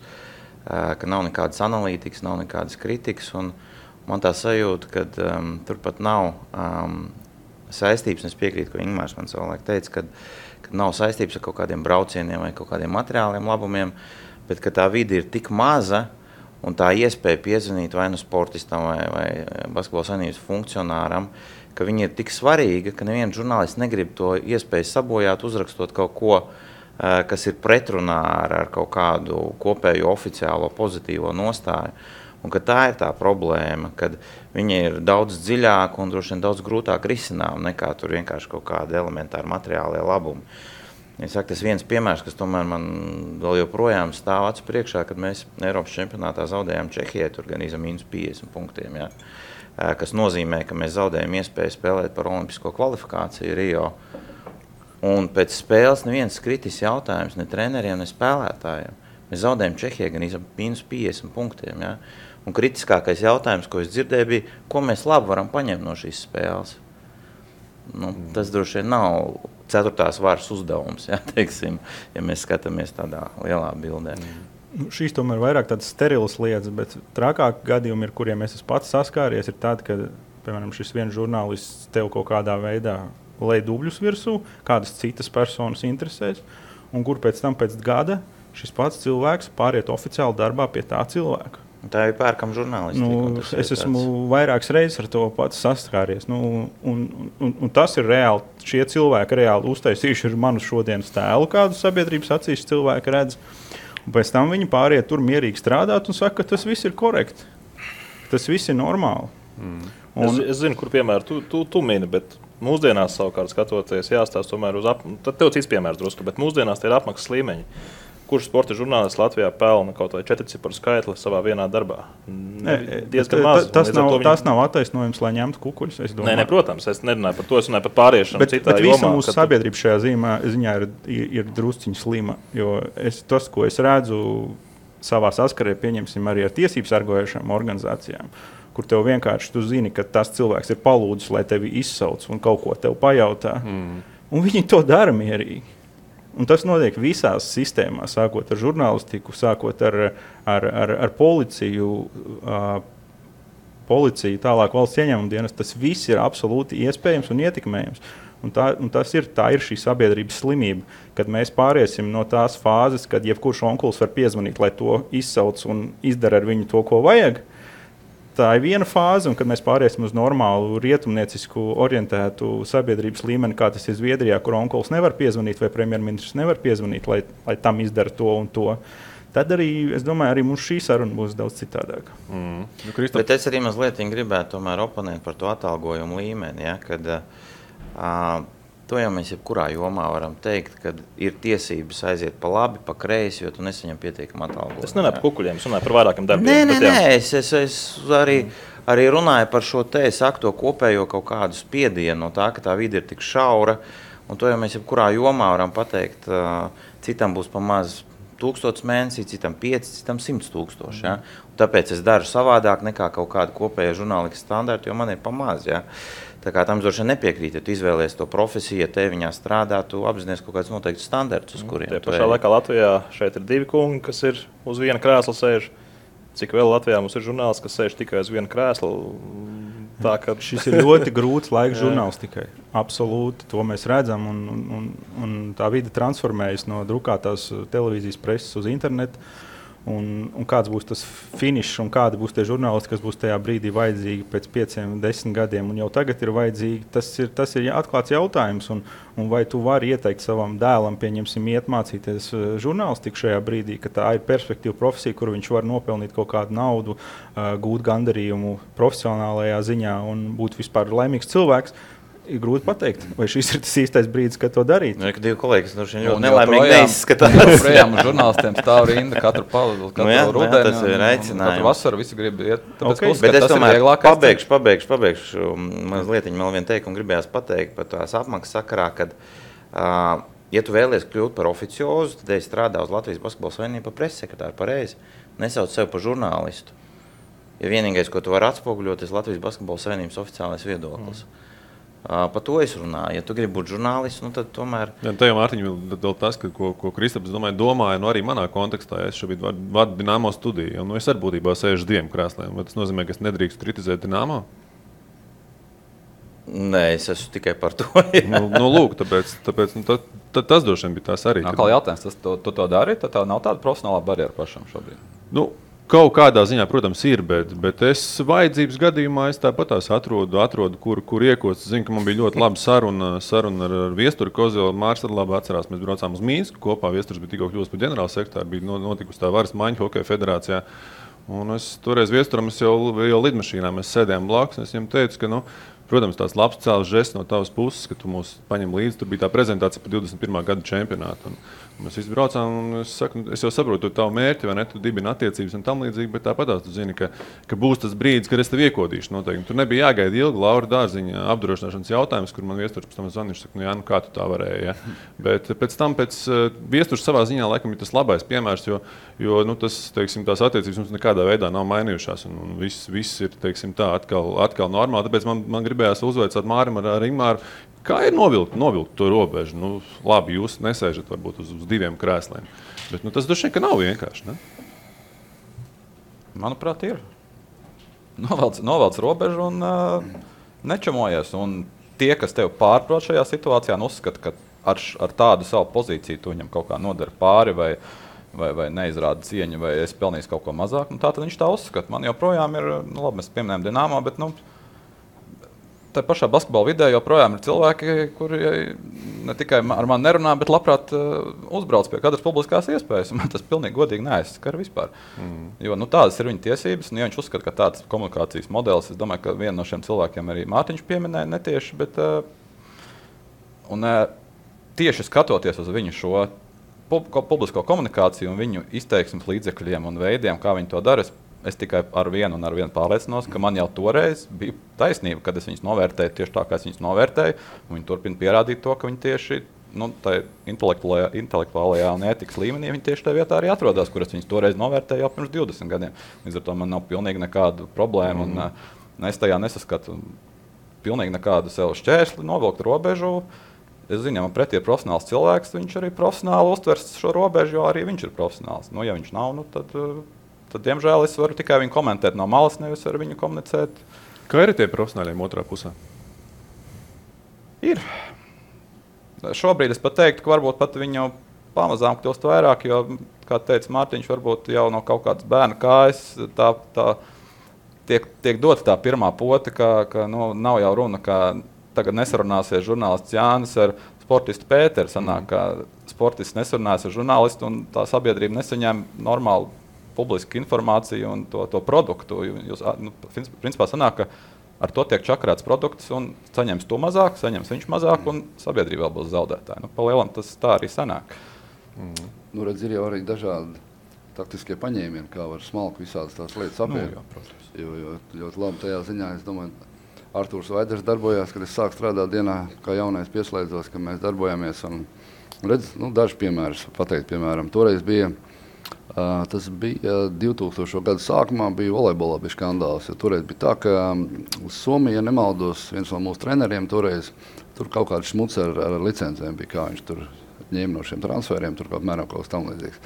ka nav nekādas analītikas, nav nekādas kritikas. Un man tā sajūta, ka turpat nav saistības, un es piekrītu, ko Ingmārs man savulaik teica, ka nav saistības ar kaut kādiem braucieniem vai kaut kādiem materiāliem labumiem, bet ka tā vide ir tik maza, un tā iespēja piezvanīt vai nu sportistam vai basketbola savienības funkcionāram, ka viņi ir tik svarīga, ka neviens žurnālists negrib to iespēju sabojāt, uzrakstot kaut ko, kas ir pretrunā ar kaut kādu kopējo oficiālo pozitīvo nostāju. Un ka tā ir tā problēma, kad viņi ir daudz dziļāk un droši vien daudz grūtāk risinām nekā tur vienkārši kaut kādi elementāri materiālie labumi. Es saku, tas viens piemērs, kas tomēr man vēl joprojām stāv acu priekšā, kad mēs Eiropas čempionātā zaudējām Čehijai, tur gan -50 punktiem, jā, kas nozīmē, ka mēs zaudējam iespēju spēlēt par olimpisko kvalifikāciju Rio. Un pēc spēles neviens kritis jautājums ne treneriem, ne spēlētājiem. Mēs zaudējam Čehijai gan -50 punktiem, jā. Un kritiskākais jautājums, ko es dzirdēju, bija, ko mēs labi varam paņemt no šīs spēles. Tas droši vien nav 4. varas uzdevums, ja, teiksim, ja mēs skatāmies tādā lielā bildē. Šīs tomēr vairāk tādas sterilas lietas, bet trakāki gadījumi, ar kuriem es esmu pats saskāries, ir tādi, ka, piemēram, šis viens žurnālists tev kaut kādā veidā lej dubļus virsū, kādas citas personas interesēs, un kur pēc tam pēc gada šis pats cilvēks pāriet oficiāli darbā pie tā cilvēka. Tā ir pērkama žurnālistika. Es esmu vairākas reizes ar to pats saskāries. Un tas ir reāli. Šie cilvēki reāli uztaisījuši ir manu šodienas tēlu, kādu sabiedrības acīs cilvēki redz. Un pēc tam viņi pāriet tur mierīgi strādāt un saka, ka tas viss ir korekti. Tas viss ir normāli. Es zinu, kur piemēru tu mini, bet mūsdienās savukārt skatoties jāstāsta tomēr tad tev cits piemērs drusku, bet mūsdienās tie ir apmaksas līmeņi. Kurš sporta žurnālists Latvijā pelna kaut vai 4-ciparu skaitli savā vienā darbā? Diezgan maz. Tas nav attaisnojums, lai ņemtu kukuļus. Nē, protams, es nerunāju par to, es runāju par pāriešanu citā jomā. Bet visa mūsu sabiedrība šajā ziņā ir drusciņi slima, jo tas, ko es redzu savā saskarē, pieņemsim arī ar tiesību sargājošām organizācijām, kur tev vienkārši tu zini, ka tas cilvēks ir palūdzis, lai tevi izsauc un kaut ko tev pajautā. Un viņi to dara mierīgi. Un tas notiek visās sistēmās, sākot ar žurnālistiku, sākot ar policiju, tālāk valsts ieņēmuma dienas. Tas viss ir absolūti iespējams un ietekmējams. Un tā ir šī sabiedrības slimība, kad mēs pāriesim no tās fāzes, kad jebkurš onkulis var piezvanīt, lai to izsauc un izdara ar viņu to, ko vajag. Tā ir viena fāze, un kad mēs pāriesim uz normālu rietumniecisku orientētu sabiedrības līmeni, kā tas ir Zviedrijā, kur onkulis nevar piezvanīt vai premjerministrs nevar piezvanīt, lai tam izdara to un to, tad arī, es domāju, arī mums šī saruna būs daudz citādāka. Bet es arī mazliet gribētu tomēr oponēt par to atalgojumu līmeni, ja, kad to jau mēs jebkurā jomā varam teikt, kad ir tiesības aiziet pa labi, pa kreisi, jo tu nesaņem pietiekumu atalgojumu. Es nenāju par kukuļiem, es runāju par vairākiem darbiem. Nē, es arī runāju par šo te, es saku to kopējo kaut kādu spiedienu no tā, ka tā vide ir tik šaura, un to jau mēs jebkurā jomā varam pateikt, citam būs pa maz 1000 mēnesī, citam 5, citam 100 000. Ja? Un tāpēc es daru savādāk nekā kaut kāda kopēja žurnālistikas standarta, jo man ir pamaz. Ja? Tā kā tam droši nepiekrīt, ja tu izvēlies to profesiju, ja te viņā strādā, tu apzinies kaut kāds noteikts standarts, uz kuriem. Tie pašā laikā Latvijā šeit ir 2 kungi, kas ir uz viena krēsla sēž. Cik vēl Latvijā mums ir žurnālisti, kas sēž tikai uz viena krēsla? Tā, ka... Šis ir ļoti grūts laiks žurnālistikai. Absolūti, to mēs redzam. Un tā vide transformējas no drukātās televīzijas preses uz internetu. Un kāds būs tas finišs un kādi būs tie žurnālisti, kas būs tajā brīdī vajadzīgi pēc 5, 10 gadiem. Un jau tagad ir vajadzīgi, tas ir atklāts jautājums. Un vai tu vari ieteikt savam dēlam, pieņemsim, iet mācīties žurnālistiku šajā brīdī, ka tā ir perspektīva profesija, kur viņš var nopelnīt kaut kādu naudu, gūt gandarījumu profesionālajā ziņā un būt vispār laimīgs cilvēks. Ir grūti pateikt, vai šis ir tas īstais brīdis, kad to darīt. Nu, ka 2 kolēģi ļoti nelaimīgi neizskatās. Projām žurnālistiem stāv rinda katru rudeni. Tas ir aicinājums. Katru vasaru visi grib iet. Okay. Bet es tomēr pabeigšu. Mazliet vēl vienu teikumu gribējās pateikt par tās apmaksas sakarā, kad, ja tu vēlies kļūt par oficiozu, tad es strādāju uz Latvijas Basketbola Savienību par pressekretāru pareizi. Nesauc sevi par žurnālistu. Ja vienīgais, ko tu vari atspoguļot, ir Latvijas Basketbola Savienības oficiālais viedoklis. Par to es runāju. Ja tu gribi būt žurnālists, nu tad tomēr... Ja, tā jau, Mārtiņ, vēl tas, ko Kristaps domāja, arī manā kontekstā, ja es šobrīd vadu Dinamo studiju, un es arī būtībā sēžu 2 krēsliem. Vai tas nozīmē, ka es nedrīkst kritizēt Dinamo? Nē, es esmu tikai par to. Lūk, tāpēc tas droši vien bija tās arī. Kā jautājums, tu to dari, tad tā nav tāda profesionālā barjera pašam šobrīd? Kaut kādā ziņā, protams, ir, bet es vajadzības gadījumā tāpat atrodu, kur iekost. Es zinu, ka man bija ļoti laba saruna ar Viesturi Kozelu. Mārs arī labi atcerās. Mēs braucām uz Mīnsku kopā. Viesturs bija tikko kļuvis par ģenerālsekretāru, bija notikusi tā varas maiņa Hokeja federācijā. Un es toreiz Viesturam jau lidmašīnā mēs sēdējām blakus. Es viņam teicu, ka, protams, tās labs cēls žests no tavas puses, ka tu mūs paņem līdzi. Tur bija tā prezentācija par 21. gada čempionātu. Mēs visi braucām, un es jau saprotu tavu mērķi, vai ne, tu dibini attiecības un tam līdzīgi, bet tāpatās tu zini, ka būs tas brīdis, kad es tev iekodīšu noteikti. Tur nebija jāgaida ilgi Laura Dārziņa apdrošināšanas jautājums, kur man Viesturs pēc tam zvanīja, saka, kā tu tā varēji, ja? Bet pēc tam Viesturs savā ziņā laikam ir tas labais piemērs, jo tas, teiksim, tās attiecības mums nekādā veidā nav mainījušās, un viss ir, teiksim, tā atkal normāli, tāpēc man gribējās uzveicāt Mārim ar Ingmāru. Kā ir novilkt to robežu? Labi, jūs nesēžat varbūt uz 2 krēsliem, bet tas droši vien, ka nav vienkārši, ne? Manuprāt, ir. Novelc robežu un nečamojies. Un tie, kas tev pārprot šajā situācijā, uzskata, ka ar tādu savu pozīciju tu viņam kaut kā nodara pāri vai neizrāda cieņu, vai es pelnīju kaut ko mazāk. Tā tad viņš tā uzskata. Man joprojām ir, labi, mēs pieminējam Dinamo, bet tā pašā basketbola vidē joprojām ir cilvēki, kuri ne tikai ar mani nerunā, bet labprāt uzbrauc pie katras publiskās iespējas. Man tas pilnīgi godīgi neaizskar vispār. Jo tādas ir viņa tiesības, un ja viņš uzskata, ka tāds komunikācijas modelis, es domāju, ka vienu no šiem cilvēkiem arī Mārtiņš pieminēja netieši, bet tieši skatoties uz viņu šo publisko komunikāciju un viņu izteiksmes līdzekļiem un veidiem, kā viņi to dara, es tikai ar vienu pārliecinos, ka man jau toreiz bija taisnība, kad es viņus novērtēju tieši tā, kā es viņus novērtēju. Viņi turpina pierādīt to, ka viņi tieši tā intelektuālajā un ētikas līmenī viņi tieši tajā vietā arī atrodas, kur es viņus toreiz novērtēju jau pirms 20 gadiem. Līdz ar to man nav pilnīgi nekādu problēmu un es tajā nesaskatu pilnīgi nekādu sev šķērsli, novilkt robežu. Es zinu, ja man pretī ir profesionāls cilvēks, viņš arī profesionāli uztvers šo robežu, jo arī viņš ir profesionāls. Ja viņš nav, tad, diemžēl, es varu tikai viņu komentēt no malas, nevis ar viņu komunicēt. Kā ir tie profesionāļiem otrā pusē? Ir. Šobrīd es pat teiktu, ka varbūt pat viņu pamazām kļūst vairāk, jo, kā teica Mārtiņš, varbūt jau no kaut kādas bērna kājas tiek dota tā pirmā pote, ka nav jau runa, ka tagad nesarunāsies žurnālists Jānis ar sportistu Pēteru. Sanāk, ka sportists nesarunājas ar žurnālistu un tā sabiedrība nesaņem normālu publisku informāciju un to produktu. Principā sanāk, ka ar to tiek čakarēts produkts un saņems to mazāk, saņems viņš mazāk un sabiedrība vēl būs zaudētāji. Pa lielam tas tā arī sanāk. Redz, ir jau arī dažādi taktiskie paņēmieni, kā var smalku visādas tās lietas apiet. Jo ļoti labi tajā ziņā, es domāju, Artūrs Vaiders darbojās, kad es sāku strādāt dienā, kā jaunais pieslēdzos, ka mēs darbojāmies. Un redz, daži piemēri pateikt, piemēram, toreiz bija Tas bija 2000. Gada sākumā, bija volejbolā bija skandāls. Toreiz bija tā, ka Somija, ja nemaldos, viens no mūsu treneriem toreiz, tur kaut kāds šmuts ar licencēm bija, kā viņš tur ņēma no šiem transferiem, tur apmēram kaut kas tam līdzīgs.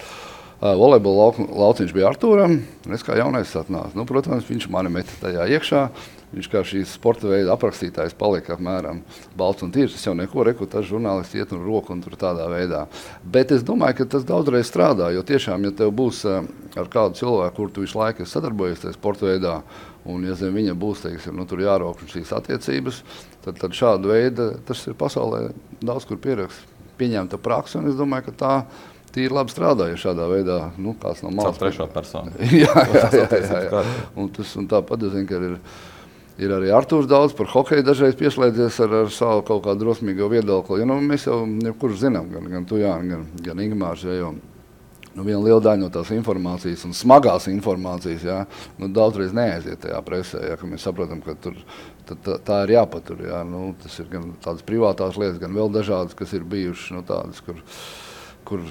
Volejbola lauciņš bija Artūram, un es kā jaunais atnācu. Nu, protams, viņš mani meta tajā iekšā. Viņš kā šīs sporta veida aprakstītājs palika apmēram balts un tīrs. Es jau neko reku, tas žurnālisti iet un roku un tur tādā veidā. Bet es domāju, ka tas daudzreiz strādā, jo tiešām, ja tev būs ar kādu cilvēku, kur tu visu laiku sadarbojies tajā sporta veidā, un ja zem viņa būs, teiksim, tur jārokš šīs attiecības, tad šādu veidu tas ir pasaulē daudz kur pieņemta praksa, un es domāju, ka tā tīri labi strādāja šādā veidā, kāds no malas. Caur trešo personu. jā. Un tāpat, es zinu, ka ir arī Artūrs daudz par hokeju dažreiz pieslēdzies ar savu kaut kādu drosmīgo viedokli. Mēs jau kurš zinām, gan tu, Jāni, gan Ingmārs, jo viena liela daļa no tās informācijas un smagās informācijas, daudzreiz neaiziet tajā presē, ka mēs saprotam, ka tur tā ir jāpatur. Tas ir gan tādas privātās lietas, gan vēl dažādas, kas ir bijušas, tādas, kur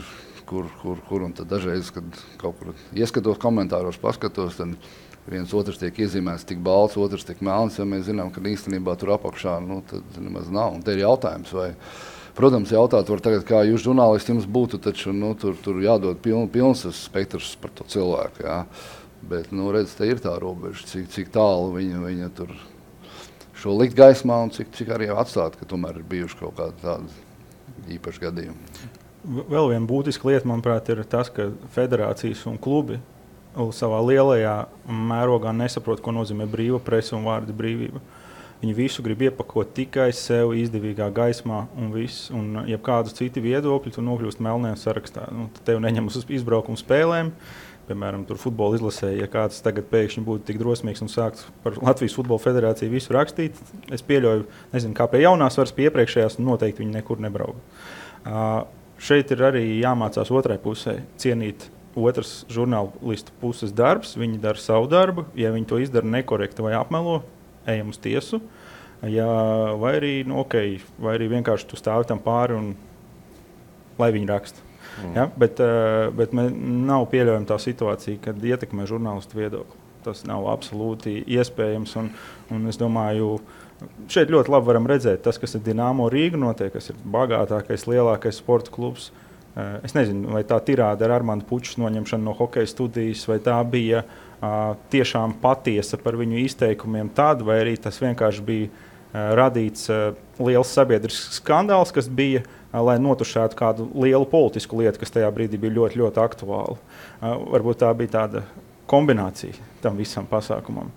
un tad dažreiz, kad kaut kur ieskatos komentāros, paskatos, tad viens otrs tiek iezīmēts tik balts, otrs tik melns, ja mēs zinām, ka īstenībā tur apakšā, tad nemaz nav. Un te ir jautājums, vai, protams, jautāt var tagad, kā jūs žurnālisti jums būtu, taču, tur jādod pilns spektrs par to cilvēku, jā. Bet, redz, te ir tā robeža, cik tālu viņa tur šo likt gaismā un cik arī atstāt, ka tomēr ir bijuši kaut kādi tādi īpaši gadījumi. Vēl viena būtiska lieta, manuprāt, ir tas, ka federācijas un klubi savā lielajā mērogā nesaprot, ko nozīmē brīva presa un vārda brīvība. Viņi visu grib iepakot tikai sev izdevīgā gaismā un viss. Un ja kādu citu viedokļu, tu nokļūst melnajā sarakstā. Tad tev neņem uz izbraukumu spēlēm. Piemēram, tur futbola izlasē, ja kāds tagad pēkšņi būtu tik drosmīgs un sāktu par Latvijas futbola federāciju visu rakstīt, es pieļauju, nezinu, kā pie jaunās varas, pie iepriekšējās, noteikti viņi nekur nebrauga. Šeit ir arī jāmācās otrai pusē cienīt otrs žurnālistu puses darbs, viņi dara savu darbu, ja viņi to izdara nekorekti vai apmelo, ejam uz tiesu, vai arī vienkārši tu stāvi tam pāri un lai viņi raksta. Ja? Bet nav pieļaujama tā situācija, kad ietekmē žurnālistu viedokli. Tas nav absolūti iespējams, un es domāju, šeit ļoti labi varam redzēt tas, kas ir Dinamo Rīga notiek, kas ir bagātākais, lielākais sporta klubs. Es nezinu, vai tā tirāde ar Armandu Pučas noņemšanu no hokeja studijas, vai tā bija tiešām patiesa par viņu izteikumiem tad, vai arī tas vienkārši bija radīts liels sabiedrisks skandāls, kas bija, lai notušētu kādu lielu politisku lietu, kas tajā brīdī bija ļoti, ļoti aktuāla. Varbūt tā bija tāda kombinācija tam visam pasākumam,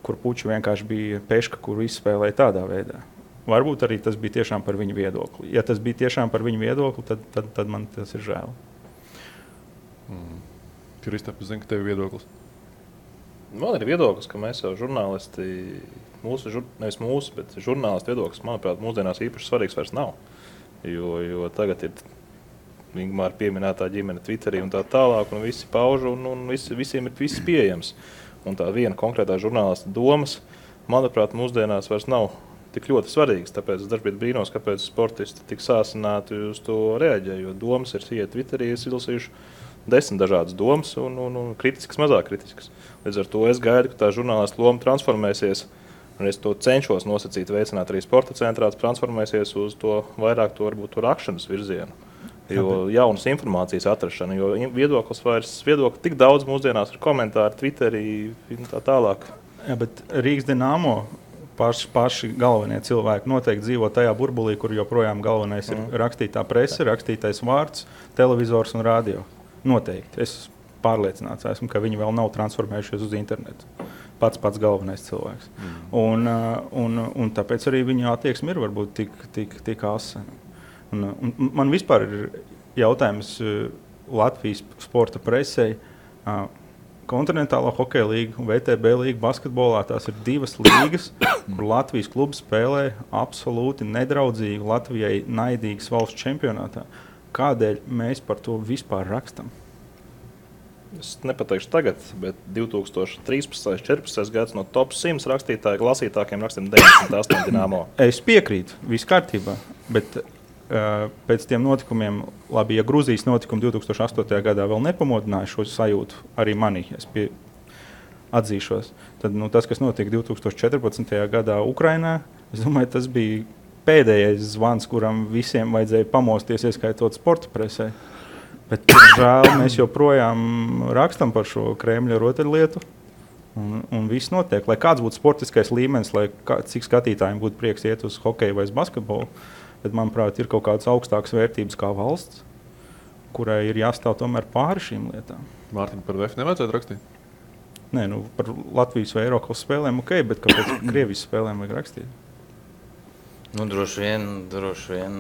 kur Puča vienkārši bija peška, kuru izspēlēja tādā veidā. Varbūt arī tas bija tiešām par viņu viedokli. Ja tas bija tiešām par viņu viedokli, tad man tas ir žēl. Kristap, es zinu, ka tev ir viedoklis. Man ir viedoklis, ka mēs jau žurnālisti, nevis mūsu, bet žurnālisti viedoklis, manuprāt, mūsdienās īpaši svarīgs vairs nav. Jo tagad ir Ingmāra pieminētā ģimene Twitterī un tā tālāk, un visi pauž, un visiem ir viss pieejams. Un tā viena konkrētā žurnālista domas, manuprāt, mūsdienās vairs nav tik ļoti svarīgs, tāpēc es dažkārt brīnos, kāpēc sportisti tik sāsināti uz to reaģē, jo domas ir iet Twitterī, es izlasījuši 10 dažādas domas un kritiskas, mazāk kritiskas. Līdz ar to es gaidu, ka tā žurnālista loma transformēsies, un es to cenšos nosacīt, veicināt arī sporta centrā, transformēsies uz to vairāk to varbūt to rakšanas virzienu. Jo jaunas informācijas atrašana, jo viedokļi tik daudz mūsdienās ir komentāri Twitterī un tā tālāk. Jā, bet Rīgas Dinamo paši galvenie cilvēki noteikti dzīvo tajā burbulī, kur joprojām galvenais ir rakstītā prese, rakstītais vārds, televizors un radio. Noteikti. Es pārliecināts esmu, ka viņi vēl nav transformējušies uz internetu. Pats galvenais cilvēks. Un tāpēc arī viņa attieksme ir varbūt tik asa. Un man vispār ir jautājums Latvijas sporta presei. Kontinentālā hokeja līga un VTB līga basketbolā, tās ir divas līgas, kur Latvijas klubs spēlē absolūti nedraudzīgu, Latvijai naidīgas valsts čempionātā. Kādēļ mēs par to vispār rakstam? Es nepateikšu tagad, bet 2013.14. gads no top 100 rakstītāju lasītākiem rakstiem 98 Dinamo. Es piekrītu, viss kārtībā, bet pēc tiem notikumiem, labi, ja Gruzijas notikumi 2008. gadā vēl nepamodināja šo sajūtu arī manī, atzīšos, tad tas, kas notika 2014. gadā Ukrainā, es domāju, tas bija pēdējais zvans, kuram visiem vajadzēja pamosties, ieskaitot sporta presē. Bet, žēl, mēs joprojām rakstam par šo Kremļa rotaļlietu, un viss notiek. Lai kāds būtu sportiskais līmenis, cik skatītājiem būtu prieks iet uz hokeju vai uz basketbolu, bet, manuprāt, ir kaut kādas augstākas vērtības kā valsts, kurai ir jāstāv tomēr pāri šīm lietām. Mārtiņ, par VF nevajadzētu rakstīt? Nē, par Latvijas vai Eiropas spēlēm ok, bet kāpēc Krievijas spēlēm vajag rakstīt? Droši vien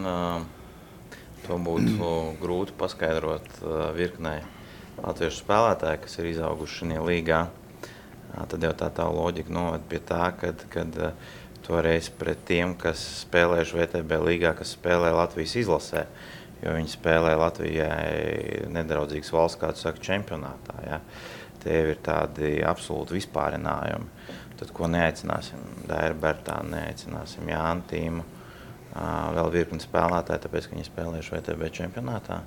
to būtu grūti paskaidrot virknei latviešu spēlētāju, kas ir izauguši šajā līgā. Tad jau tā loģika noved pie tā, kad toreiz pret tiem, kas spēlējuši VTB līgā, kas spēlē Latvijas izlasē, jo viņi spēlē Latvijai nedraudzīgas valsts, kā tu saki, čempionātā. Ja? Tie ir tādi absolūti vispārinājumi. Tad, ko neaicināsim? Dairu Bertānu neaicināsim, Jānu Tīmu, vēl virkni spēlētāji, tāpēc, ka viņi spēlējuši VTB čempionātā.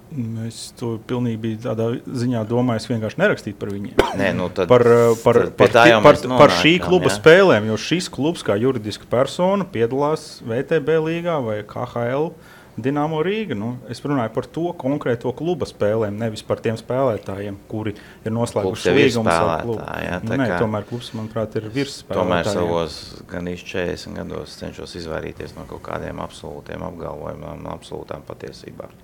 Es to pilnīgi biju tādā ziņā domājis vienkārši nerakstīt par viņiem. Nē, tad, par šī kluba spēlēm, jo šis klubs kā juridiska persona piedalās VTB līgā vai KHL Dinamo Rīga. Es runāju par to konkrēto kluba spēlēm, nevis par tiem spēlētājiem, kuri ir noslēguši līgumus ar klubu. Tomēr klubs, manuprāt, ir virsspēlētājiem. Tomēr savos gan 40 gados cenšos izvairīties no kaut kādiem absolūtiem apgalvojumiem, absolūtām patiesībām.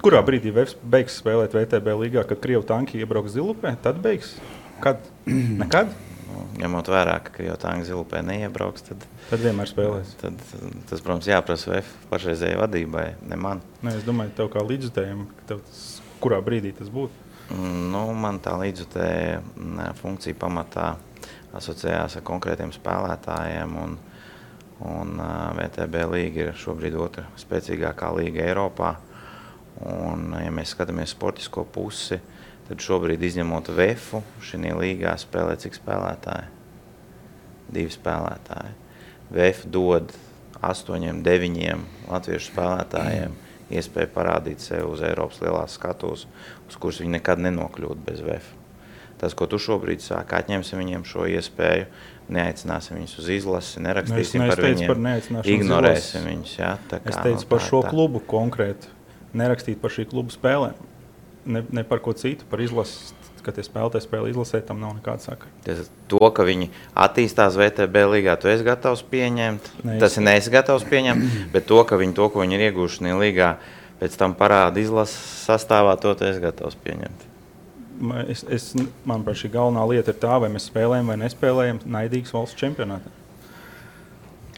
Kurā brīdī beigs spēlēt VTB līgā, kad Krievu tanki iebrauks Zilupē? Tad beigs? Kad? Nekad? Ņemot vērā, ka Krievu tanki Zilupē neiebrauks, tad vienmēr spēlēs. Tas, protams, jāprasa VF pašreizējai vadībai, ne man. Es domāju, tev kā līdzjutējiem, kurā brīdī tas būtu? Man tā līdzjutēja funkcija pamatā asociējās ar konkrētiem spēlētājiem, un VTB līga ir šobrīd otra spēcīgākā līga Eiropā. Un, ja mēs skatāmies sportisko pusi, tad šobrīd izņemot VF, šajā līgā spēlē cik spēlētāji? 2 spēlētāji. VF dod 8, 9 latviešu spēlētājiem iespēju parādīt sevi uz Eiropas lielās skatuves, uz kuras viņi nekad nenokļūtu bez VF. Tas, ko tu šobrīd sāki, atņemsim viņiem šo iespēju, neaicināsim viņus uz izlasi, nerakstīsim par viņiem, ignorēsim viņus. Ja? Es teicu par šo klubu konkrēti, nerakstīt par šī kluba spēlēm. Ne par ko citu, par izlasi, kad tie spēlētāji spēlē izlasē, tam nav nekāda sakara. To, ka viņi attīstās VTB līgā, tu esi gatavs pieņemt, tas ir neesi gatavs pieņemt, bet to, ko viņi ir ieguvuši šajā līgā, pēc tam parāda izlases sastāvā, to esi gatavs pieņemt. Manuprāt, šī galvenā lieta ir tā, vai mēs spēlējam vai nespēlējam naidīgas valsts čempionātā.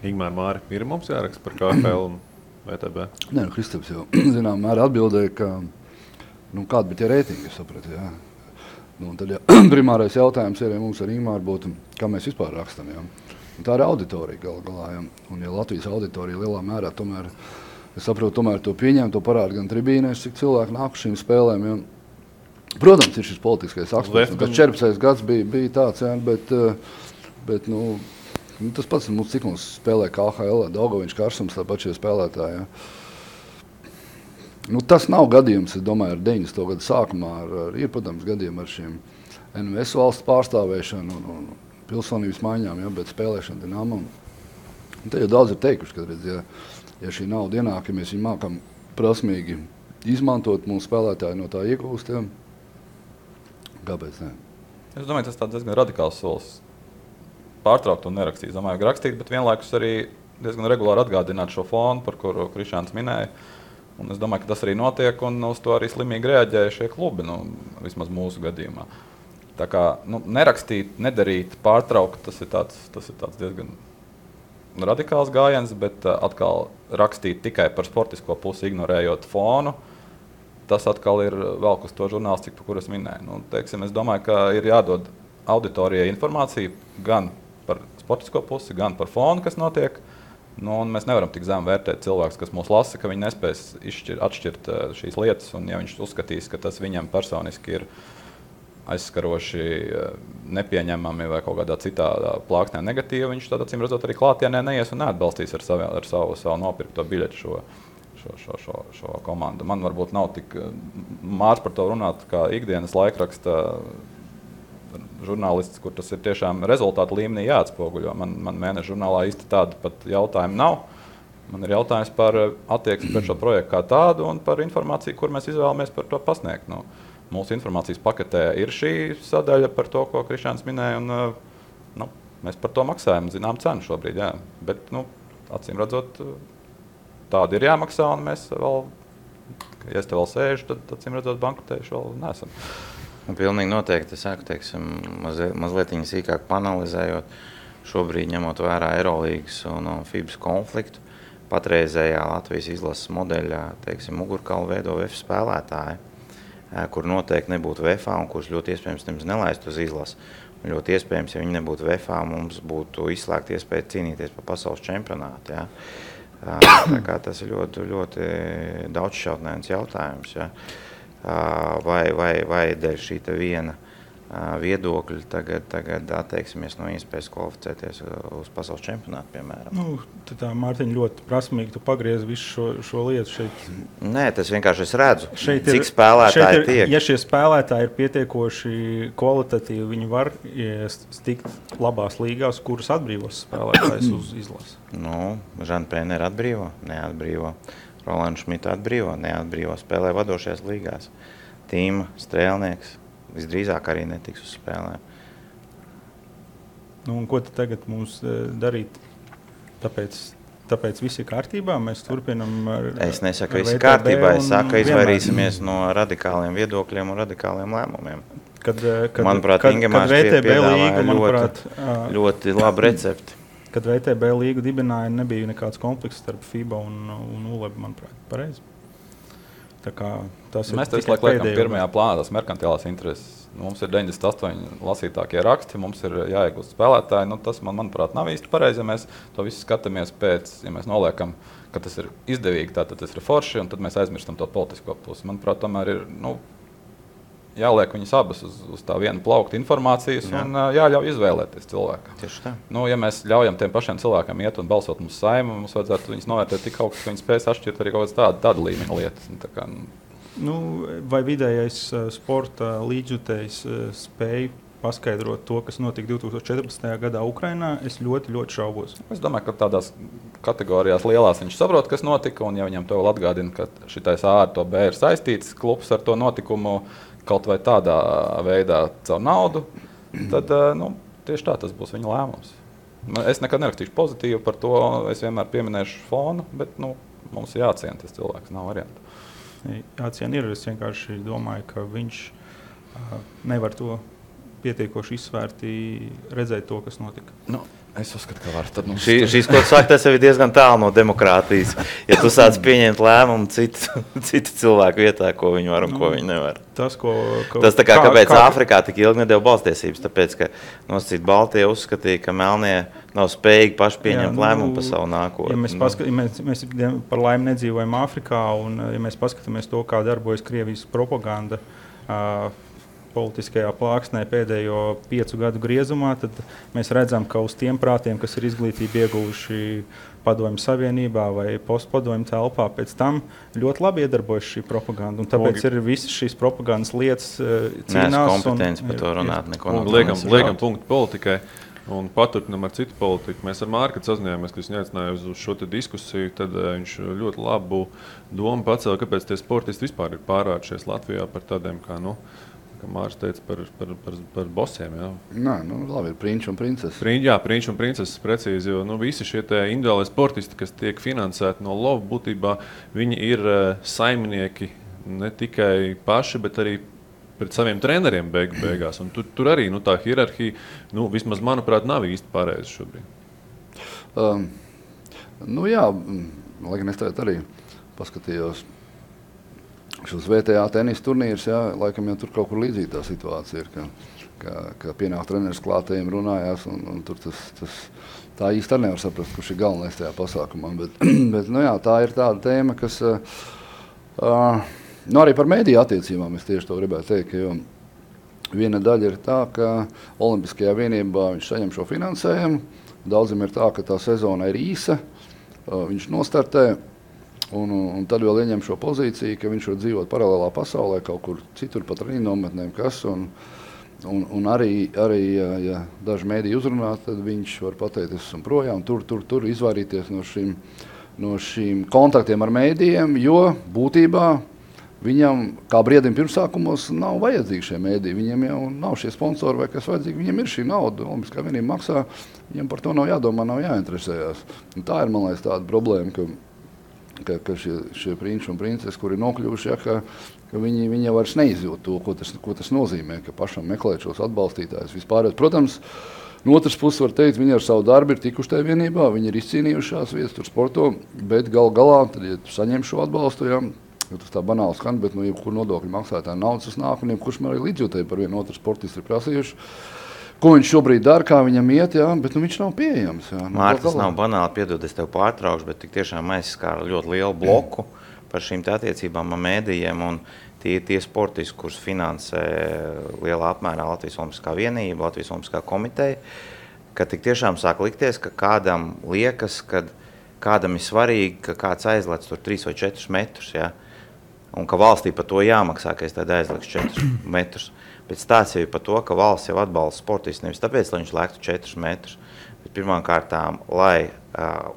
Ingmār, Māri, ir mums jāraksta par KHL un VTB? Nē, Kristaps jau zinām mērā atbildēja, ka kāda bija tie reitingi, es sapratu, jā. Tad primārais jautājums ir, ja mums ar Ingmāru būtu, kā mēs vispār rakstam, jā. Tā ir auditorija galā, jā. Un ja Latvijas auditorija lielā mērā tomēr, es saprotu, tomēr to pieņem, to parāda gan tribīnēs, cik cilvēki nāk šīm spēlēm, jā. Protams, ir šis politiskais aspekts, kas 14. gads bija tāds, jā, bet tas pats mums, cik mums spēlē KHL, Daugaviņš, Karsums, tāpat šie spēlētāji, jā. Tas nav gadījums, es domāju, ar 90. gadu sākumā, ir, protams, gadījumi ar šiem NVS valsts pārstāvēšanu un pilsonības maiņām, ja, bet spēlēšana Dinamo. Te jau daudz ir teikuši, ka, redz, ja šī nauda ienāk, ja mēs viņu mākam prasmīgi izmantot, mūsu spēlētāji no tā iegūst, ja. Kāpēc ne? Es domāju, tas tāds diezgan radikāls solis. Pārtraukt un nerakstīt. Domāju, ka rakstīt, bet vienlaikus arī diezgan regulāri atgādināt šo fonu, par kuru Krišāns minēja. Un es domāju, ka tas arī notiek, un uz to arī slimīgi reaģēja šie klubi, vismaz mūsu gadījumā. Tā kā nerakstīt, nedarīt, pārtraukt, tas ir tāds diezgan radikāls gājiens, bet atkal rakstīt tikai par sportisko pusi, ignorējot fonu, tas atkal ir vēl uz to žurnālistiku, par kur es minēju. Es domāju, ka ir jādod auditorijai informācija gan par sportisko pusi, gan par fonu, kas notiek. Un mēs nevaram tik zem vērtēt cilvēkus, kas mūs lasa, ka viņi nespēs atšķirt šīs lietas. Un ja viņš uzskatīs, ka tas viņam personiski ir aizskaroši, nepieņemami vai kaut kādā citā plāksnē negatīvi, viņš tad, acīm redzot, arī klātienē neies un neatbalstīs ar savu nopirkto biļetu šo komandu. Man varbūt nav tik mārs par to runāt, kā ikdienas laikraksta žurnālists, kur tas ir tiešām rezultātu līmenī jāatspoguļo. Man mēneša žurnālā īsti tāda pat jautājuma nav. Man ir jautājums par attieksmi pret šo projektu kā tādu un par informāciju, kur mēs izvēlamies par to pasniegt. Mūsu informācijas paketē ir šī sadaļa par to, ko Krišāns minēja, un mēs par to maksājam zinām cenu šobrīd. Jā. Bet, acīm redzot, tāda ir jāmaksā, un mēs vēl, ja es te vēl sēžu, tad acīm redzot, bankrotējuši vēl neesam. Pilnīgi noteikti, es saku, teiksim, mazliet sīkāk panalizējot, šobrīd ņemot vērā Eirolīgas un FIBas konfliktu, patreizējā Latvijas izlases modeļā, teiksim, mugurkaulu veido VF spēlētāji, kur noteikti nebūtu VFA un kurš ļoti iespējams nemaz nelaistu uz izlasi. Un ļoti iespējams, ja viņi nebūtu VFA, mums būtu izslēgta iespēja cīnīties par pasaules čempionātu. Ja? Tā kā tas ir ļoti, ļoti daudzšķautnēns jautājums. Ja? Vai dēļ šī viena viedokļi tagad atteiksimies no iespējas kvalificēties uz pasaules čempionātu, piemēram. Tā Mārtiņa ļoti prasmīgi tu pagriez visu šo lietu šeit. Nē, tas vienkārši es redzu, cik spēlētāji tiek. Ja šie spēlētāji ir pietiekoši kvalitatīvi, viņi var tikt labās līgās, kuras atbrīvos spēlētājs uz izlasi. Žana Pēnera atbrīvo, neatbrīvo. Rolandu Šmitu atbrīvo, neatbrīvo. Spēlē vadošajās līgās. Tīma, Strēlnieks. Visdrīzāk arī netiks uz spēlēm. Un ko tad tagad mums darīt? Tāpēc viss ir kārtībā? Mēs turpinam Es nesaku, viss ir kārtībā. Es saku, izvairīsimies no radikāliem viedokļiem un radikāliem lēmumiem. Manuprāt, Ingemārs piedāvāja ļoti labu recepti. Kad VTB līgu dibināja, nebija nekāds konflikts starp FIBA un ULEB, manuprāt, pareizi. Mēs te visu laiku liekam pirmajā plānā tās merkantilās intereses. Mums ir 98 lasītākie raksti, mums ir jāiegūst spēlētāji. Tas, manuprāt, nav īsti pareizi, ja mēs to visu skatāmies pēc, ja mēs noliekam, ka tas ir izdevīgi, tad tas ir forši, un tad mēs aizmirstam to politisko pusi. Manuprāt, tomēr ir jāliek viņas abas uz tā viena plaukta informācijas un jāļauj izvēlēties cilvēkam. Tieši tā. Ja mēs ļaujam tiem pašiem cilvēkiem iet un balsot mums Saimu, mums vajadzētu viņus novērtēt tik augstu, ka viņi spēs atšķirt arī kaut kādas tāda līmeņa lietas. Vai vidējais sporta līdzjutējs spēj paskaidrot to, kas notika 2014. gadā Ukrainā, es ļoti, ļoti šaubos. Es domāju, ka tādās kategorijās lielās viņš saprot, kas notika, un ja viņam to vēl atgādina, ka šitais A ar to B ir saistīts klubs ar to notikumu, kaut vai tādā veidā caur naudu, tad tieši tā tas būs viņa lēmums. Es nekad nerakstīšu pozitīvu par to, es vienmēr pieminēšu fonu, bet mums jāciena tas cilvēks, nav variantu. Jāciena ir, es vienkārši domāju, ka viņš nevar to pietiekoši izsvērti redzēt to, kas notika. Es uzskatu, ka var. Šīs, ko tu saki, tas jau ir diezgan tālu no demokrātijas. Ja tu sāc pieņemt lēmumu citu cilvēku vietā, ko viņi var un ko viņi nevar. Tas tā kā kāpēc Āfrikā tik ilgi nedēļa balstiesības, tāpēc, ka nosacīt Baltija uzskatīja, ka Melnie nav spējīgi paši pieņemt lēmumu par savu nākotni. Ja mēs par laimi nedzīvojam Āfrikā, un ja mēs paskatāmies to, kā darbojas Krievijas propaganda, politiskajā plāksnē pēdējo 5 gadu griezumā, tad mēs redzam, ka uz tiem prātiem, kas ir izglītību ieguvuši Padomju Savienībā vai postpadomju telpā, pēc tam ļoti labi iedarbojas šī propaganda. Un tāpēc ir visas šīs propagandas lietas cīnās. Neesmu kompetents par to runāt. Liekam punktu politikai un paturpinam ar citu politiku. Mēs ar Mārku sazinājāmies, ka viņš neaicināja uz šo diskusiju, tad viņš ļoti labu domu pacēla, kāpēc tie sportisti vispār ir pārvēršies Latvijā par tādiem kā, Mārs teica par bosiem. Labi, ir prinči un princeses. Prinči un princeses, precīzi, jo visi šie individuālie sportisti, kas tiek finansēti no LOV, būtībā viņi ir saimnieki ne tikai paši, bet arī pret saviem treneriem beigās. Un tur arī tā hierarhija, vismaz manuprāt, nav īsti pareiza šobrīd. Lai gan es tagad arī paskatījos šos VTA tenisa turnīrus, laikam jau tur kaut kur līdzīga tā situācija ir, ka pienāk treneris klātējiem runājās, un tur tā īsti arī nevar saprast, kurš ir galvenais tajā pasākumā. Bet tā ir tāda tēma, kas arī par mēdīju attiecībām es tieši to gribētu teikt, jo Viena daļa ir tā, ka Olimpiskajā vienībā viņš saņem šo finansējumu. Daudziem ir tā, ka tā sezona ir īsa, viņš nostartē, un tad vēl ieņem šo pozīciju, ka viņš var dzīvot paralēlā pasaulē, kaut kur citur pat treniņu nometnēm, kas. Un arī ja daži mēdī uzrunā, tad viņš var pateikt, es esmu projām, tur izvairīties no šīm kontaktiem ar mēdījiem, jo būtībā viņam, kā briedim pirmsākumos, nav vajadzīgi šie mēdī. Viņam jau nav šie sponsori vai kas vajadzīgi. Viņam ir šī nauda, Olimpiskā vienība maksā. Viņam par to nav jādomā, nav jāinteresējās. Un tā ir, man liekas, tāda problēma, ka šie prinči un princes, kuri nokļuvuši, ka viņi vairs neizjūt to, ko tas nozīmē, ka pašam meklēt šos atbalstītājus vispār. Protams, no otras puses var teikt, viņi ar savu darbu ir tikuši tajā vienībā, viņi ir izcīnījušās vietas tur sporto, bet galā, tad, ja tu saņem šo atbalstu, tas tā banāli skan, bet jebkur nodokļu maksātāja naudas tas nāk, un jebkurš man arī līdzjūtēji par vienu otru sportistu ir prasījuši, ko viņš šobrīd dara, kā viņam iet, bet viņš nav pieejams. Mārta, tas nav banāli, piedod, es tev pārtraukšu, bet tik tiešām aizskāra ļoti lielu bloku par šīm attiecībām ar mēdījiem, un tie sportisti, kurus finansē lielā apmērā Latvijas Olimpiskā vienība, Latvijas Olimpiskā komiteja, ka tik tiešām sāk likties, ka kādam liekas, ka kādam ir svarīgi, ka kāds aizlec tur 3 vai 4 metrus, un ka valstī par to jāmaksā, ka es tad aizliekšu 4 metrus. Bet stāsts jau ir par to, ka valsts jau atbalsta sportistu nevis tāpēc, lai viņš lēktu 4 metrus, bet pirmām kārtām, lai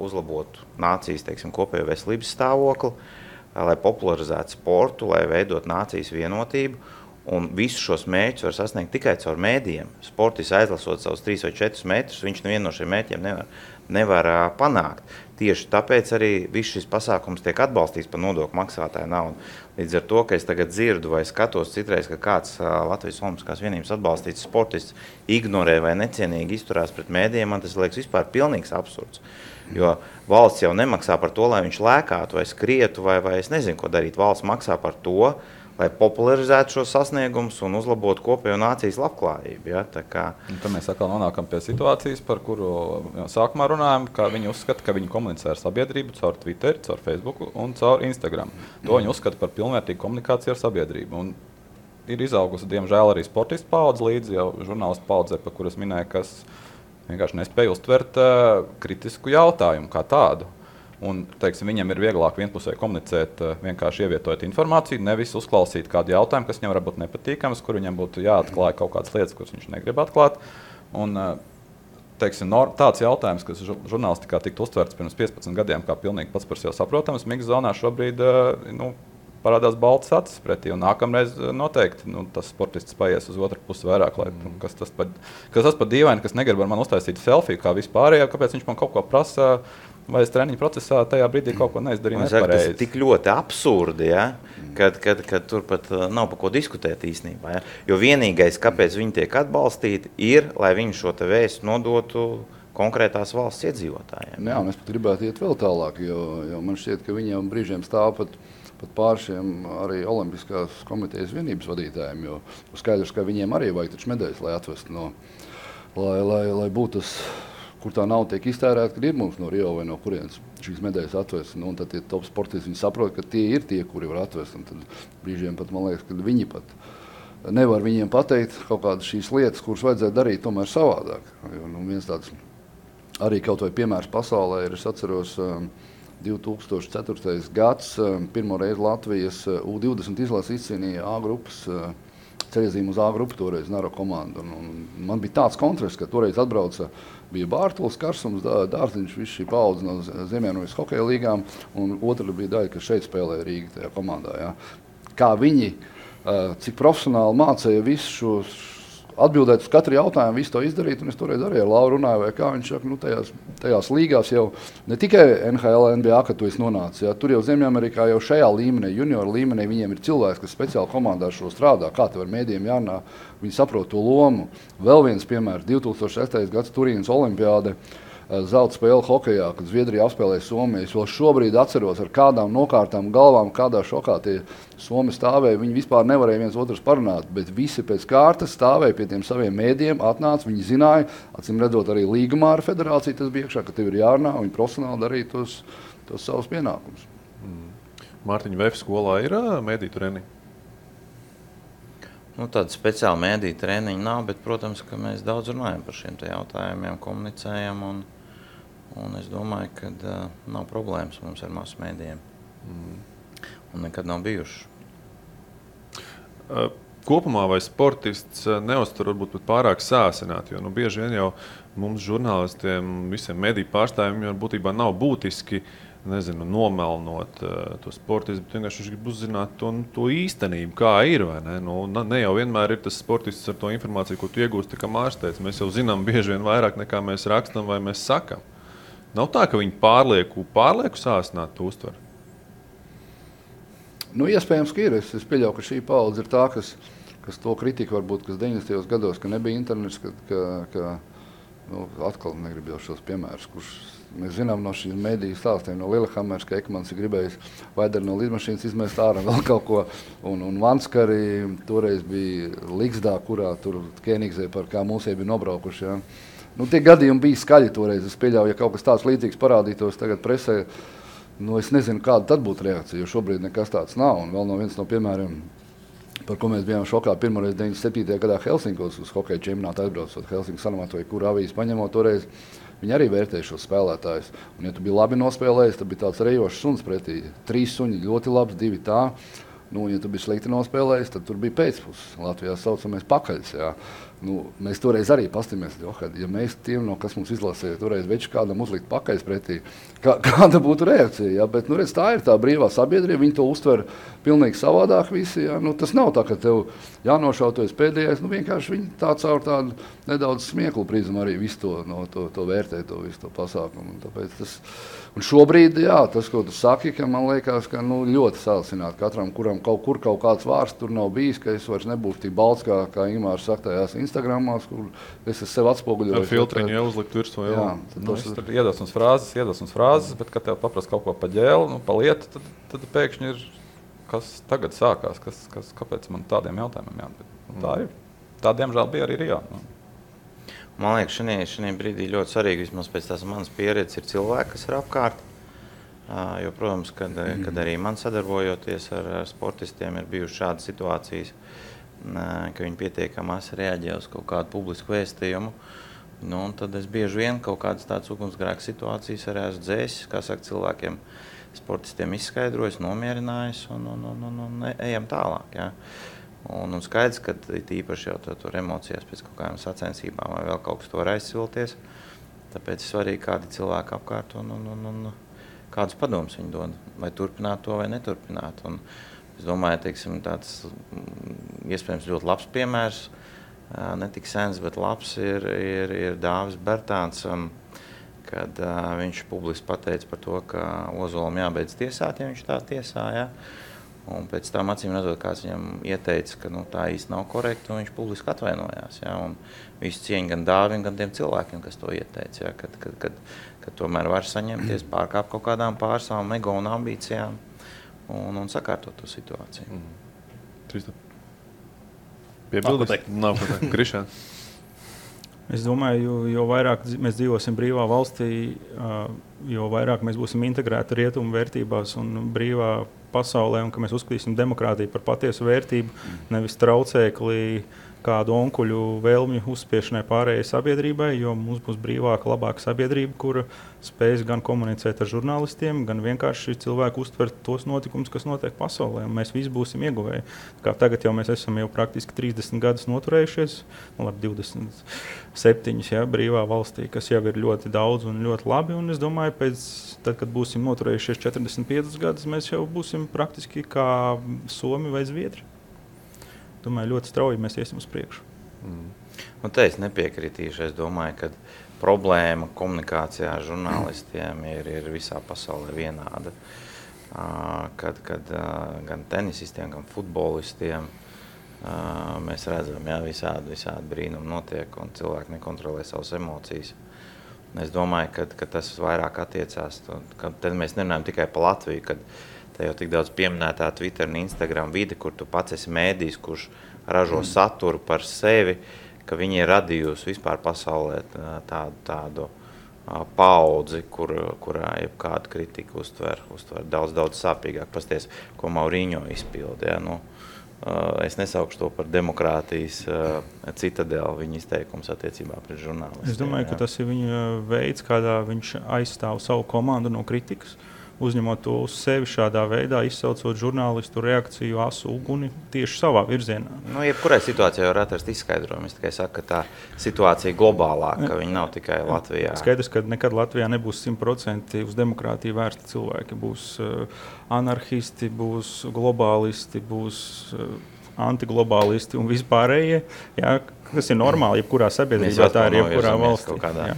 uzlabotu nācijas, teiksim, kopējo veselības stāvokli, lai popularizētu sportu, lai veidot nācijas vienotību, un visus šos mērķus var sasniegt tikai caur mēdījiem. Sportists aizlasot savus 3 vai 4 metrus, viņš nevienu no šiem mērķiem nevar panākt. Tieši tāpēc arī viss šis pasākums tiek atbalstīts par nodokļu maksātāju naudu. Līdz ar to, ka es tagad dzirdu vai skatos citreiz, ka kāds Latvijas Olimpiskās vienības atbalstīts sportists ignorē vai necienīgi izturās pret mēdījiem, man tas liekas vispār pilnīgs absurds. Jo valsts jau nemaksā par to, lai viņš lēkātu vai skrietu vai es nezinu, ko darīt. Valsts maksā par to, lai popularizētu šos sasniegumus un uzlabotu kopējo nācijas labklājību. Tad mēs atkal nonākam pie situācijas, par kuru sākumā runājam, ka viņi uzskata, ka viņi komunicē ar sabiedrību caur Twitter, caur Facebook un caur Instagram. To viņi uzskata par pilnvērtīgu komunikāciju ar sabiedrību. Un ir izaugusi, diemžēl, arī sportistu paudze līdzi, jau žurnālistu paudze, par kuras minēja, kas vienkārši nespēja uztvert kritisku jautājumu kā tādu. Un, teiksim, viņam ir vieglāk vienpusēji komunicēt, vienkārši ievietojot informāciju, nevis uzklausīt kādu jautājumu, kas viņam var būt nepatīkams, kur viņam būtu jāatklāj kaut kādas lietas, kuras viņš negrib atklāt. Un, teiksim, tāds jautājums, kas žurnālistikā tiktu uztverts pirms 15 gadiem, kā pilnīgi pats par sevi saprotams, mix zonā šobrīd parādās baltas acis pretī, un nākamreiz noteikti tas sportists paies uz otru pusi vairāk, lai kas tas par dīvaini, kas negrib ar mani uztaisīt selfiju, kā vispārējā, kāpēc viņš man kaut ko prasa, vai es treniņu procesā tajā brīdī kaut ko neizdarīju nepareizi. Tas ir tik ļoti absurdi, kad tur pat nav par ko diskutēt īstenībā. Jo vienīgais, kāpēc viņi tiek atbalstīti, ir, lai viņi šo te vēstu nodotu konkrētās valsts iedzīvotājiem. Jā, un es pat gribētu iet vēl tālāk, jo man šķiet, ka viņiem brīžiem stāv pat pār šiem arī Olimpiskās komitejas vienības vadītājiem, jo skaidrs, ka viņiem arī vajag taču medaļas, lai atvestu lai būtu tas, kur tā nauda tiek iztērēta, kad ir mums no Rio vai no kurienes šīs medaļas atvest. Un tad tie top sportisti, viņi saprot, ka tie ir tie, kuri var atvest. Un tad brīžiem pat, man liekas, ka viņi pat nevar viņiem pateikt kaut kādas šīs lietas, kuras vajadzētu darīt tomēr savādāk. Viens tāds arī kaut vai piemērs pasaulē ir, es atceros, 2004. gads, pirmo reizi Latvijas U20 izlase izcīnīja A grupas ceļazīmu uz A grupu, toreiz Naro komandu. Un man bija tāds kontrasts, ka toreiz atbrauca, bija Bārtuls, Karsums, Dārziņš, viss šī paudze no Zemienojas hokeja līgām, un otra bija daļa, kas šeit spēlēja Rīga tajā komandā. Jā. Kā viņi, cik profesionāli mācīja visu šos, atbildēt uz katru jautājumu, visu to izdarīt, un es toreiz arī ar Lauru runāju, vai kā viņš saka, tajās līgās jau ne tikai NHL, NBA, kad tu esi nonācis, tur jau Ziemeļamerikā jau šajā līmenī, junioru līmenī, viņiem ir cilvēks, kas speciāli komandā šo strādā, kā tev ar mēdījiem jārunā, viņi saprot to lomu. Vēl viens piemērs, 2006. gads Turīnas olimpiāde, zelta spēle hokejā, kad Zviedrija apspēlēja Somiju. Es vēl šobrīd atceros ar kādām nokārtām galvām, kādā šokā tie Somi stāvēja. Viņi vispār nevarēja viens otrus parunāt, bet visi pēc kārtas stāvēja pie tiem saviem mēdījiem, atnāca, viņi zināja, acīm redzot arī līgumā ar federāciju tas bija iekšā, ka tev ir jārunā, un viņi profesionāli darīja tos savus pienākumus. Mārtiņa, VF skolā ir mēdī treniņi? Tāda speciāla mēdīja treniņa nav, bet, protams, ka mēs daudz runājam par šiem te jautājumiem, komunicējam, un es domāju, ka nav problēmas mums ar masu mēdījiem. Un nekad nav bijuši. Kopumā vai sportists neuztur varbūt pārāk sāsināt, jo bieži vien jau mums žurnālistiem, visiem mediju pārstāvjiem jau būtībā nav būtiski, nomelnot to sportistu, bet vienkārši viņš grib uzzināt to īstenību, kā ir, vai ne? Ne jau vienmēr ir tas sportists ar to informāciju, ko tu iegūsti, kā Mārs teica. Mēs jau zinām bieži vien vairāk nekā mēs rakstam vai mēs sakam. Nav tā, ka viņi pārlieku sāsināt to uztver. Iespējams, ka ir. Es pieļauju, ka šī paudze ir tā, kas to kritiku varbūt, kas 90. gados, ka nebija internets, atkal negribu jau šos piemērus, kurš mēs zinām no šīs mediju stāstiem, no Lillehammers, ka Ekmans ir gribējis Vaideri no lidmašīnas izmest ārā vēl kaut ko, un Vanskari toreiz bija Ligsdā, kurā tur Kēnigzē par kā mūsiem bija nobraukuši. Ja. Tie gadījumi bija skaļi toreiz. Es pieļauju, ja kaut kas tāds līdzīgs parādītos tagad presē, es nezinu, kāda tad būtu reakcija, jo šobrīd nekas tāds nav. Un vēl viens no piemēriem, par ko mēs bijām šokā pirmoreiz 97. gadā Helsinkos uz hokeja čempionātu aizbraucot Helsinku Sanomato, vai kuru avīzi paņemot toreiz, viņi arī vērtēja šos spēlētājus. Un, ja tu biji labi nospēlējis, tad bija tāds rejošs suns pretī. 3 suņi ļoti labs, 2 tā. Ja tu biji slikti nospēlējis, tad tur bija pēcpuses. Latvijā saucamies pakaļs. Jā. Mēs toreiz arī pastamies, ja mēs tiem, kas mums izlasīja, toreiz veči kādam uzlikt pakaļs pretī, kāda būtu reakcija. Jā? Bet, redz, tā ir tā brīvā sabiedrība, viņi to uztver pilnīgi savādāk visi. Jā? Tas nav tā, ka tev jānošautojas pēdējais, vienkārši viņi tā caur tādu nedaudz smieklu prizmu arī visu to vērtē, visu to pasākumu. Un šobrīd, jā, tas, ko tu saki, ka man liekas, ka ļoti sācināt katram, kuram kaut kāds vārds tur nav bijis, ka es vairs nebūšu tik balts, kā Ingmārs saka tajās Instagramās, kur es sev atspoguļoju. Ar filtriņu jau uzlikt virsmu. Tur iedvesmas frāzes, bet, kad tev paprast kaut ko pa ģēlu, pa lietu, tad pēkšņi ir, kas tagad sākās, kāpēc man tādiem jautājumiem jāatbild. Tā ir. Tā, diemžēl, bija arī Rijā. Man liekas, šajā brīdī ļoti svarīgi, vismaz pēc tās manas pieredzes, ir cilvēki, kas ir apkārt. Jo, protams, kad arī man sadarbojoties ar sportistiem ir bijušas šādas situācijas, ka viņi pietiekami reaģē uz kaut kādu publisku vēstījumu. Un tad es bieži vien kaut kādas tādas ugunsgrēka situācijas arī esmu dzēsis, kā saka, cilvēkiem, sportistiem izskaidrojis, nomierinājis un ejam tālāk. Jā. Un skaidrs, ka īpaši jau tur emocijās pēc kaut kādām sacensībām vai vēl kaut kas to var aizsilties. Tāpēc ir svarīgi, kādi cilvēki apkārt un kādus padomus viņi dod, vai turpināt to vai neturpināt. Un es domāju, teiksim, tāds iespējams ļoti labs piemērs, ne tik sens, bet labs ir Dāvis Bertāns, kad viņš publiski pateica par to, ka Ozolam jābeidz tiesāt, ja viņš tā tiesā. Ja? Un pēc tam acīm redzot, kāds viņam ieteica, ka tā īsti nav korekti, un viņš publiski atvainojās. Ja? Un visu cieņu gan Dāvim, gan tiem cilvēkiem, kas to ieteica, ja? Kad tomēr var saņemties, pārkāpt kaut kādām pār savām ego un ambīcijām un sakārtot to situāciju. Piebildīs? Nav ko teikt. Krišān? Es domāju, jo vairāk mēs dzīvosim brīvā valstī, jo vairāk mēs būsim integrēti rietumu vērtībās un brīvā pasaulē, un ka mēs uzskatīsim demokrātiju par patiesu vērtību, nevis traucēkli kādu onkuļu vēlmju uzspiešanai pārējai sabiedrībai, jo mums būs brīvāka, labāka sabiedrība, kura spēs gan komunicēt ar žurnālistiem, gan vienkārši cilvēku uztvert tos notikumus, kas notiek pasaulē, un mēs visi būsim ieguvēji. Kā tagad jau mēs esam jau praktiski 30 gadus noturējušies, ar 27 ja, brīvā valstī, kas jau ir ļoti daudz un ļoti labi, un es domāju, tad, kad būsim noturējušies 45 gadus, mēs jau būsim praktiski kā Somi vai Zviedri. Domāju, ļoti strauji mēs iesim uz priekšu. Un te es nepiekritīšu. Es domāju, ka problēma komunikācijā ar žurnālistiem ir visā pasaulē vienāda. Kad gan tenisistiem, gan futbolistiem mēs redzam, ja, visādi brīnumi notiek un cilvēki nekontrolē savas emocijas. Es domāju, ka tas vairāk attiecās. Tad mēs nerunājam tikai par Latviju, kad te jau tik daudz pieminētā Twitter un Instagram vide, kur tu pats esi mēdījis, kurš ražo saturu par sevi, ka viņi ir radījusi vispār pasaulē tādu paudzi, kurā jebkādu kritiku uztver daudz sāpīgāk. Pasties, ko Mauriņo izpilda. Ja? Es nesaukšu to par demokrātijas citadeli viņa izteikums attiecībā pret žurnālistiem. Es domāju, ka tas ir viņa veids, kādā viņš aizstāv savu komandu no kritikas, uzņemot to uz sevi šādā veidā, izsaucot žurnālistu reakciju asu uguni tieši savā virzienā. Jebkurai situācijai var atrast izskaidrojumu. Es tikai saku, ka tā situācija ir globālāka, ka viņa nav tikai Latvijā. Skaidrs, ka nekad Latvijā nebūs 100% uz demokrātiju vērsti cilvēki. Būs anarhisti, būs globālisti, būs antiglobālisti un vispārējie. Jā, kas ir normāli, jebkurā sabiedrībā, tā ir jebkurā valstī. Kaut kādā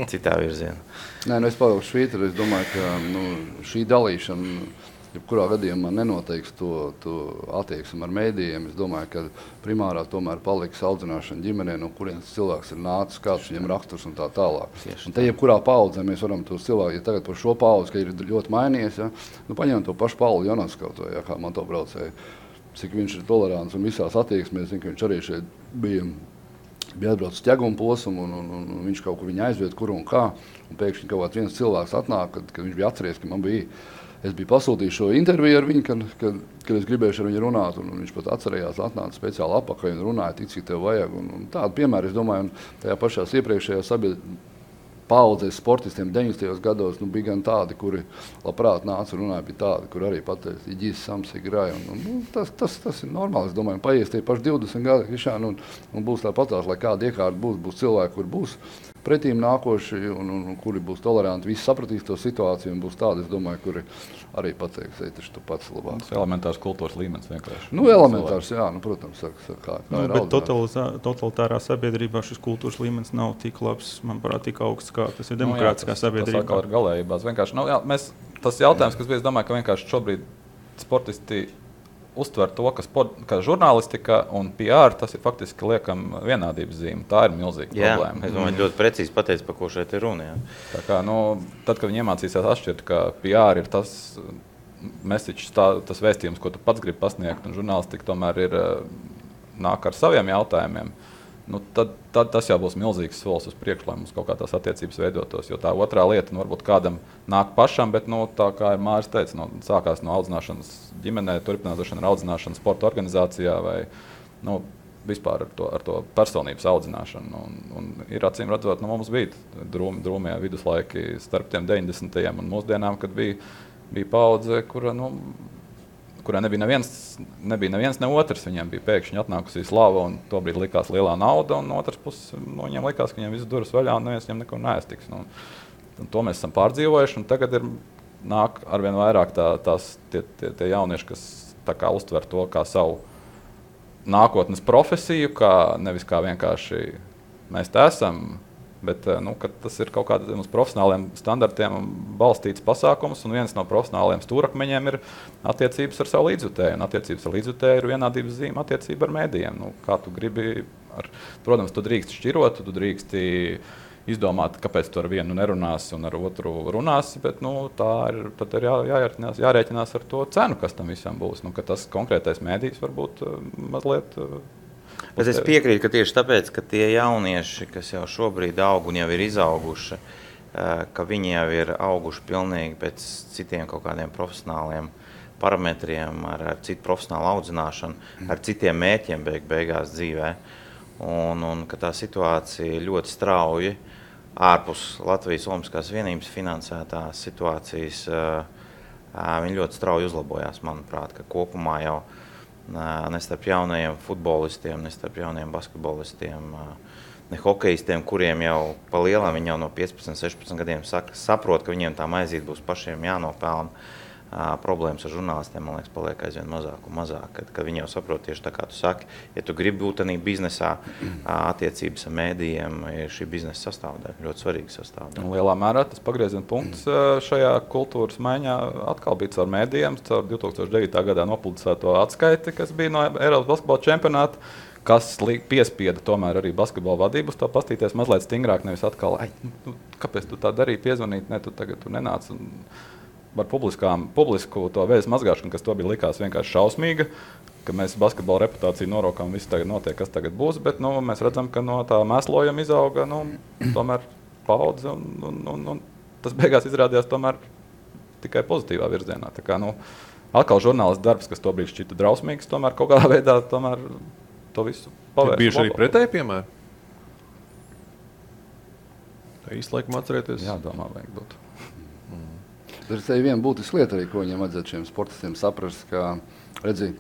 citā virzienā. Nē, es pavilkšu Švīteri. Es domāju, ka šī dalīšana jebkurā gadījumā nenoteiks to attieksmi ar mēdījiem. Es domāju, ka primārā tomēr paliks audzināšana ģimenē, no kurienes cilvēks ir nācis, kāds viņam raksturs un tā tālāk. Un te jebkurā paudzē mēs varam tos cilvēkus, ja tagad par šo paudzi, ka ir ļoti mainījies, ja, paņem to pašu Paulu Jonaskautu, ja, kā motobraucēju, cik viņš ir tolerants un visās attieksmēs. Zinu, ka viņš arī šeit bija atbraucis ķeguma posmu un viņš kaut kur viņu aizviet, kur un kā. Un pēkšņi kaut kāds viens cilvēks atnāk, kad viņš bija atceries, ka es biju pasūtījis šo interviju ar viņu, kad es gribēju ar viņu runāt. Un viņš pat atcerējās, atnāca speciāli apakaļ un runāja tik, cik tev vajag. Un tādu piemēru, es domāju, un tajā pašās iepriekšējā paudzēs sportistiem 90. gados bija gan tādi, kuri labprāt nāca un runāja, bija tādi, kur arī pateica, Iģis, Samsigrai. Tas ir normāli, es domāju, paies tie paši 20 gadi, Krišāni, un būs tāpatās, lai kāda iekārta būs cilvēki, kur būs pretīm nākoši un kuri būs toleranti, visi sapratīs to situāciju un būs tādi, es domāju, kuri arī pateiks, taču tu pats labāk. Tas elementārs kultūras līmenis vienkārši. Elementārs, jā, protams, kā ir bet totalitārā sabiedrībā šis kultūras līmenis nav tik labs, manuprāt, tik augsts, kā tas ir demokrātiskā sabiedrībā. Tas atkal ir galējībās. Vienkārši, tas jautājums, kas bija, es domāju, ka vienkārši šobrīd sportisti uztver to, ka žurnālistika un PR, tas ir faktiski liekam vienādības zīme. Tā ir milzīga problēma. Es domāju, ļoti precīzi pateicu, par ko šeit ir runa. Jā. Tā kā, tad, kad viņi iemācīsies atšķirt, ka PR ir tas message, tas vēstījums, ko tu pats gribi pasniegt, un žurnālistika tomēr ir nāk ar saviem jautājumiem, tad tas jau būs milzīgs solis uz priekšu, lai mums kaut kā tās attiecības veidotos. Jo tā otrā lieta, varbūt kādam nāk pašam, bet tā kā Māris teica, sākās no audzināšanas ģimenē, turpinās ar audzināšanu sporta organizācijā vai vispār ar to personības audzināšanu. Un ir acīm redzot, mums bija drūmie viduslaiki starp tiem 90. un mūsdienām, kad bija paudze, kurā nebija neviens, ne otrs. Viņiem bija pēkšņi atnākusī slava, un tobrīd likās lielā nauda, un otrs puses viņiem likās, ka viņiem viss durvis vaļā, un neviens viņiem neko neaiztiks. Un to mēs esam pārdzīvojuši, un tagad nāk arvien vairāk tie jaunieši, kas tā kā uztver to kā savu nākotnes profesiju, nevis kā vienkārši mēs te esam, bet tas ir kaut kādiem uz profesionāliem standartiem balstīts pasākums, un viens no profesionāliem stūrakmeņiem ir attiecības ar savu līdzjutēju. Un attiecības ar līdzjutēju ir vienādības zīme attiecība ar mēdījiem. Kā tu gribi, protams, tu drīksti šķirot, tu drīksti izdomāt, kāpēc tu ar vienu nerunāsi un ar otru runāsi, bet tad ir jārēķinās ar to cenu, kas tam visam būs. Ka tas konkrētais mēdījis varbūt mazliet... Bet es piekrītu, ka tieši tāpēc, ka tie jaunieši, kas jau šobrīd aug un jau ir izauguši, ka viņi jau ir auguši pilnīgi pēc citiem kaut kādiem profesionāliem parametriem, ar citu profesionālu audzināšanu, ar citiem mērķiem beigās dzīvē. Un ka tā situācija ļoti strauji ārpus Latvijas Olimpiskās vienības finansētās situācijas, viņi ļoti strauji uzlabojās, manuprāt, ka kopumā jau ne starp jaunajiem futbolistiem, ne starp jaunajiem basketbolistiem, ne hokejistiem, kuriem jau pa lielām viņi jau no 15, 16 gadiem saprot, ka viņiem tā maizīte būs pašiem jānopelna. Problēmas ar žurnālistiem, man liekas, paliek aizvien mazāk un mazāk, kad viņi jau saprot tieši tā, kā tu saki, ja tu gribi būt tādā biznesā, attiecības ar mēdījiem ir šī biznesa sastāvdaļa, ļoti svarīga sastāvdaļa. Lielā mērā tas pagrieziena punkts šajā kultūras maiņā atkal bija caur mēdījiem, caur 2009. gadā nopublicēto atskaiti, kas bija no Eiropas basketbola čempionāta, kas piespieda tomēr arī basketbola vadību uz to pastīties mazliet stingrāk, nevis atkal, kāpēc tu tā darīji, piezvanīt, ne, tu tagad nenāc. Par publisku to vēstu mazgāšanu, kas to bija likās vienkārši šausmīga, ka mēs basketbola reputāciju norokām, viss tagad notiek, kas tagad būs, bet mēs redzam, ka no tā mēslojuma izauga tomēr paudze, un tas beigās izrādījās tomēr tikai pozitīvā virzienā. Tā kā, atkal žurnālists darbs, kas tobrīd šķita drausmīgs, tomēr kaut kādā veidā tomēr to visu pavērst. Bijuši arī pretēji piemēri? Tā īsti laikam atcerēties. Jā, domā, vajag būt. Tur ir viena būtiska lieta, arī, ko viņiem vajadzētu šiem sportistiem saprast, ka, redzi,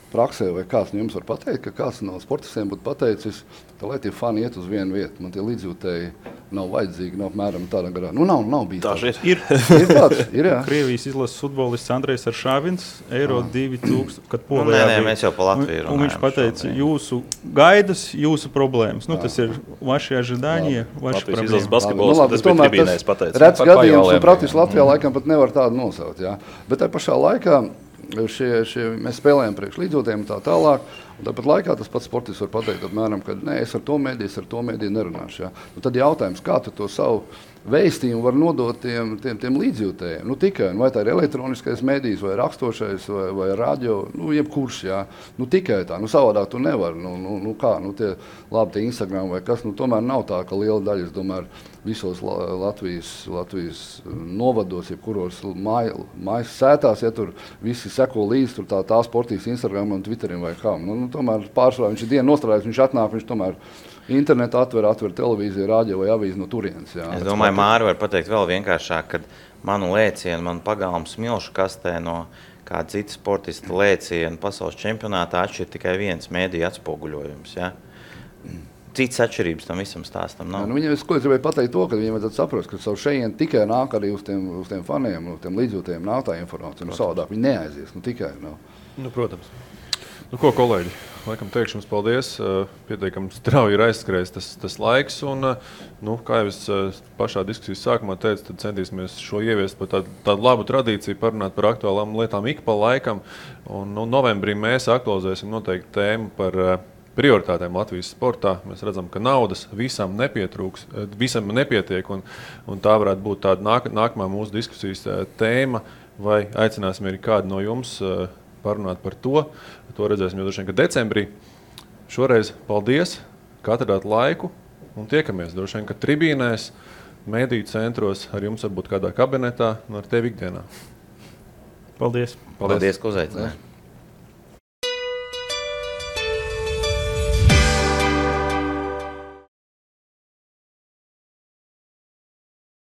praksē vai kāds no jums var pateikt, ka kāds no sportistiem būtu pateicis, ka, lai tie fani iet uz vienu vietu, man tie līdzjūtēji nav vajadzīgi, nav apmēram tādā garā. Nu, nav bijis tāds. Ir tāds, ir, jā. Krievijas izlases futbolists Andrejs Aršāvins, Eiro 2000, kad Nē, Polijā bija. mēs jau pa Latviju Un viņš runājam pateica, šodien. jūsu gaidas, jūsu problēmas. Nu, tas ir vaši ожидания, vaši Latvijas izlases problēmas. basketbols, tas bija tribīnēs pateicis. Redz Par gadījums, pajoliem, un praktiski Latvijā laikam pat nevar tādu nosaukt. Jā. Bet tajā pašā laikā mēs spēlējam priekš līdzjūtējiem un tā tālāk. Un tāpat laikā tas pats sportists var pateikt, apmēram, ka nē, es ar to mēdīju nerunāšu. Jā. Nu, tad jautājums, kā tu to savu vēstījumu var nodot tiem līdzjūtējiem? Nu, tikai, vai tā ir elektroniskais mēdījis, vai rakstošais, vai radio, nu, jebkurš, jā. Nu, tikai tā, nu, savādāk tu nevar. Nu, kā, nu, tie Instagram vai kas, nu, tomēr nav tā, ka liela daļa, es domāju, visos Latvijas novados, jebkuros mājas sētās, ja tur visi seko līdzi, tur tā sportīs Instagram un Twitterim vai kā. Nu, tomēr pārsvarā viņš ir dienu nostrādājis, viņš atnāk, viņš tomēr internetu atver televīziju, rādio vai avīzi no turienes. Jā. Es domāju, Māri var pateikt vēl vienkāršāk, kad manu lēcienu, manu pagalmu smilšu kastē no kāda cita sportista lēcienu pasaules čempionātā atšķir tikai viens mēdīju atspoguļojums. Ja? Cits atšķirības tam visam stāstam nav. Nu, viņiem, es gribēju pateikt to, ka viņiem vajadzētu saprast, ka savu šejienu tikai nāk arī uz tiem faniem, uz tiem līdzjūtējiem nāk tā informācija. Nu, savādāk viņi neaizies, nu tikai. Nu, protams. Nu, ko, kolēģi, laikam teikšu jums paldies. Pietiekami strauji ir aizskrējis tas laiks. Un, nu, kā jau es pašā diskusijas sākumā teicu, tad centīsimies šo ieviest par tādu labu tradīciju, parunāt par aktuālām lietām ik pa laikam. Un novembrī mēs aktualizēsim noteikti tēmu par prioritātēm Latvijas sportā. Mēs redzam, ka naudas visam nepietiek, un tā varētu būt tāda nākamā mūsu diskusijas tēma, vai aicināsim arī kādu no jums parunāt par to. To redzēsim jau droši vien, ka decembrī. Šoreiz paldies, ka atradāt laiku un tiekamies droši vien, ka tribīnēs, mediju centros, ar jums varbūt kādā kabinetā un ar tevi ikdienā. Paldies! Paldies, ka uzaicināji!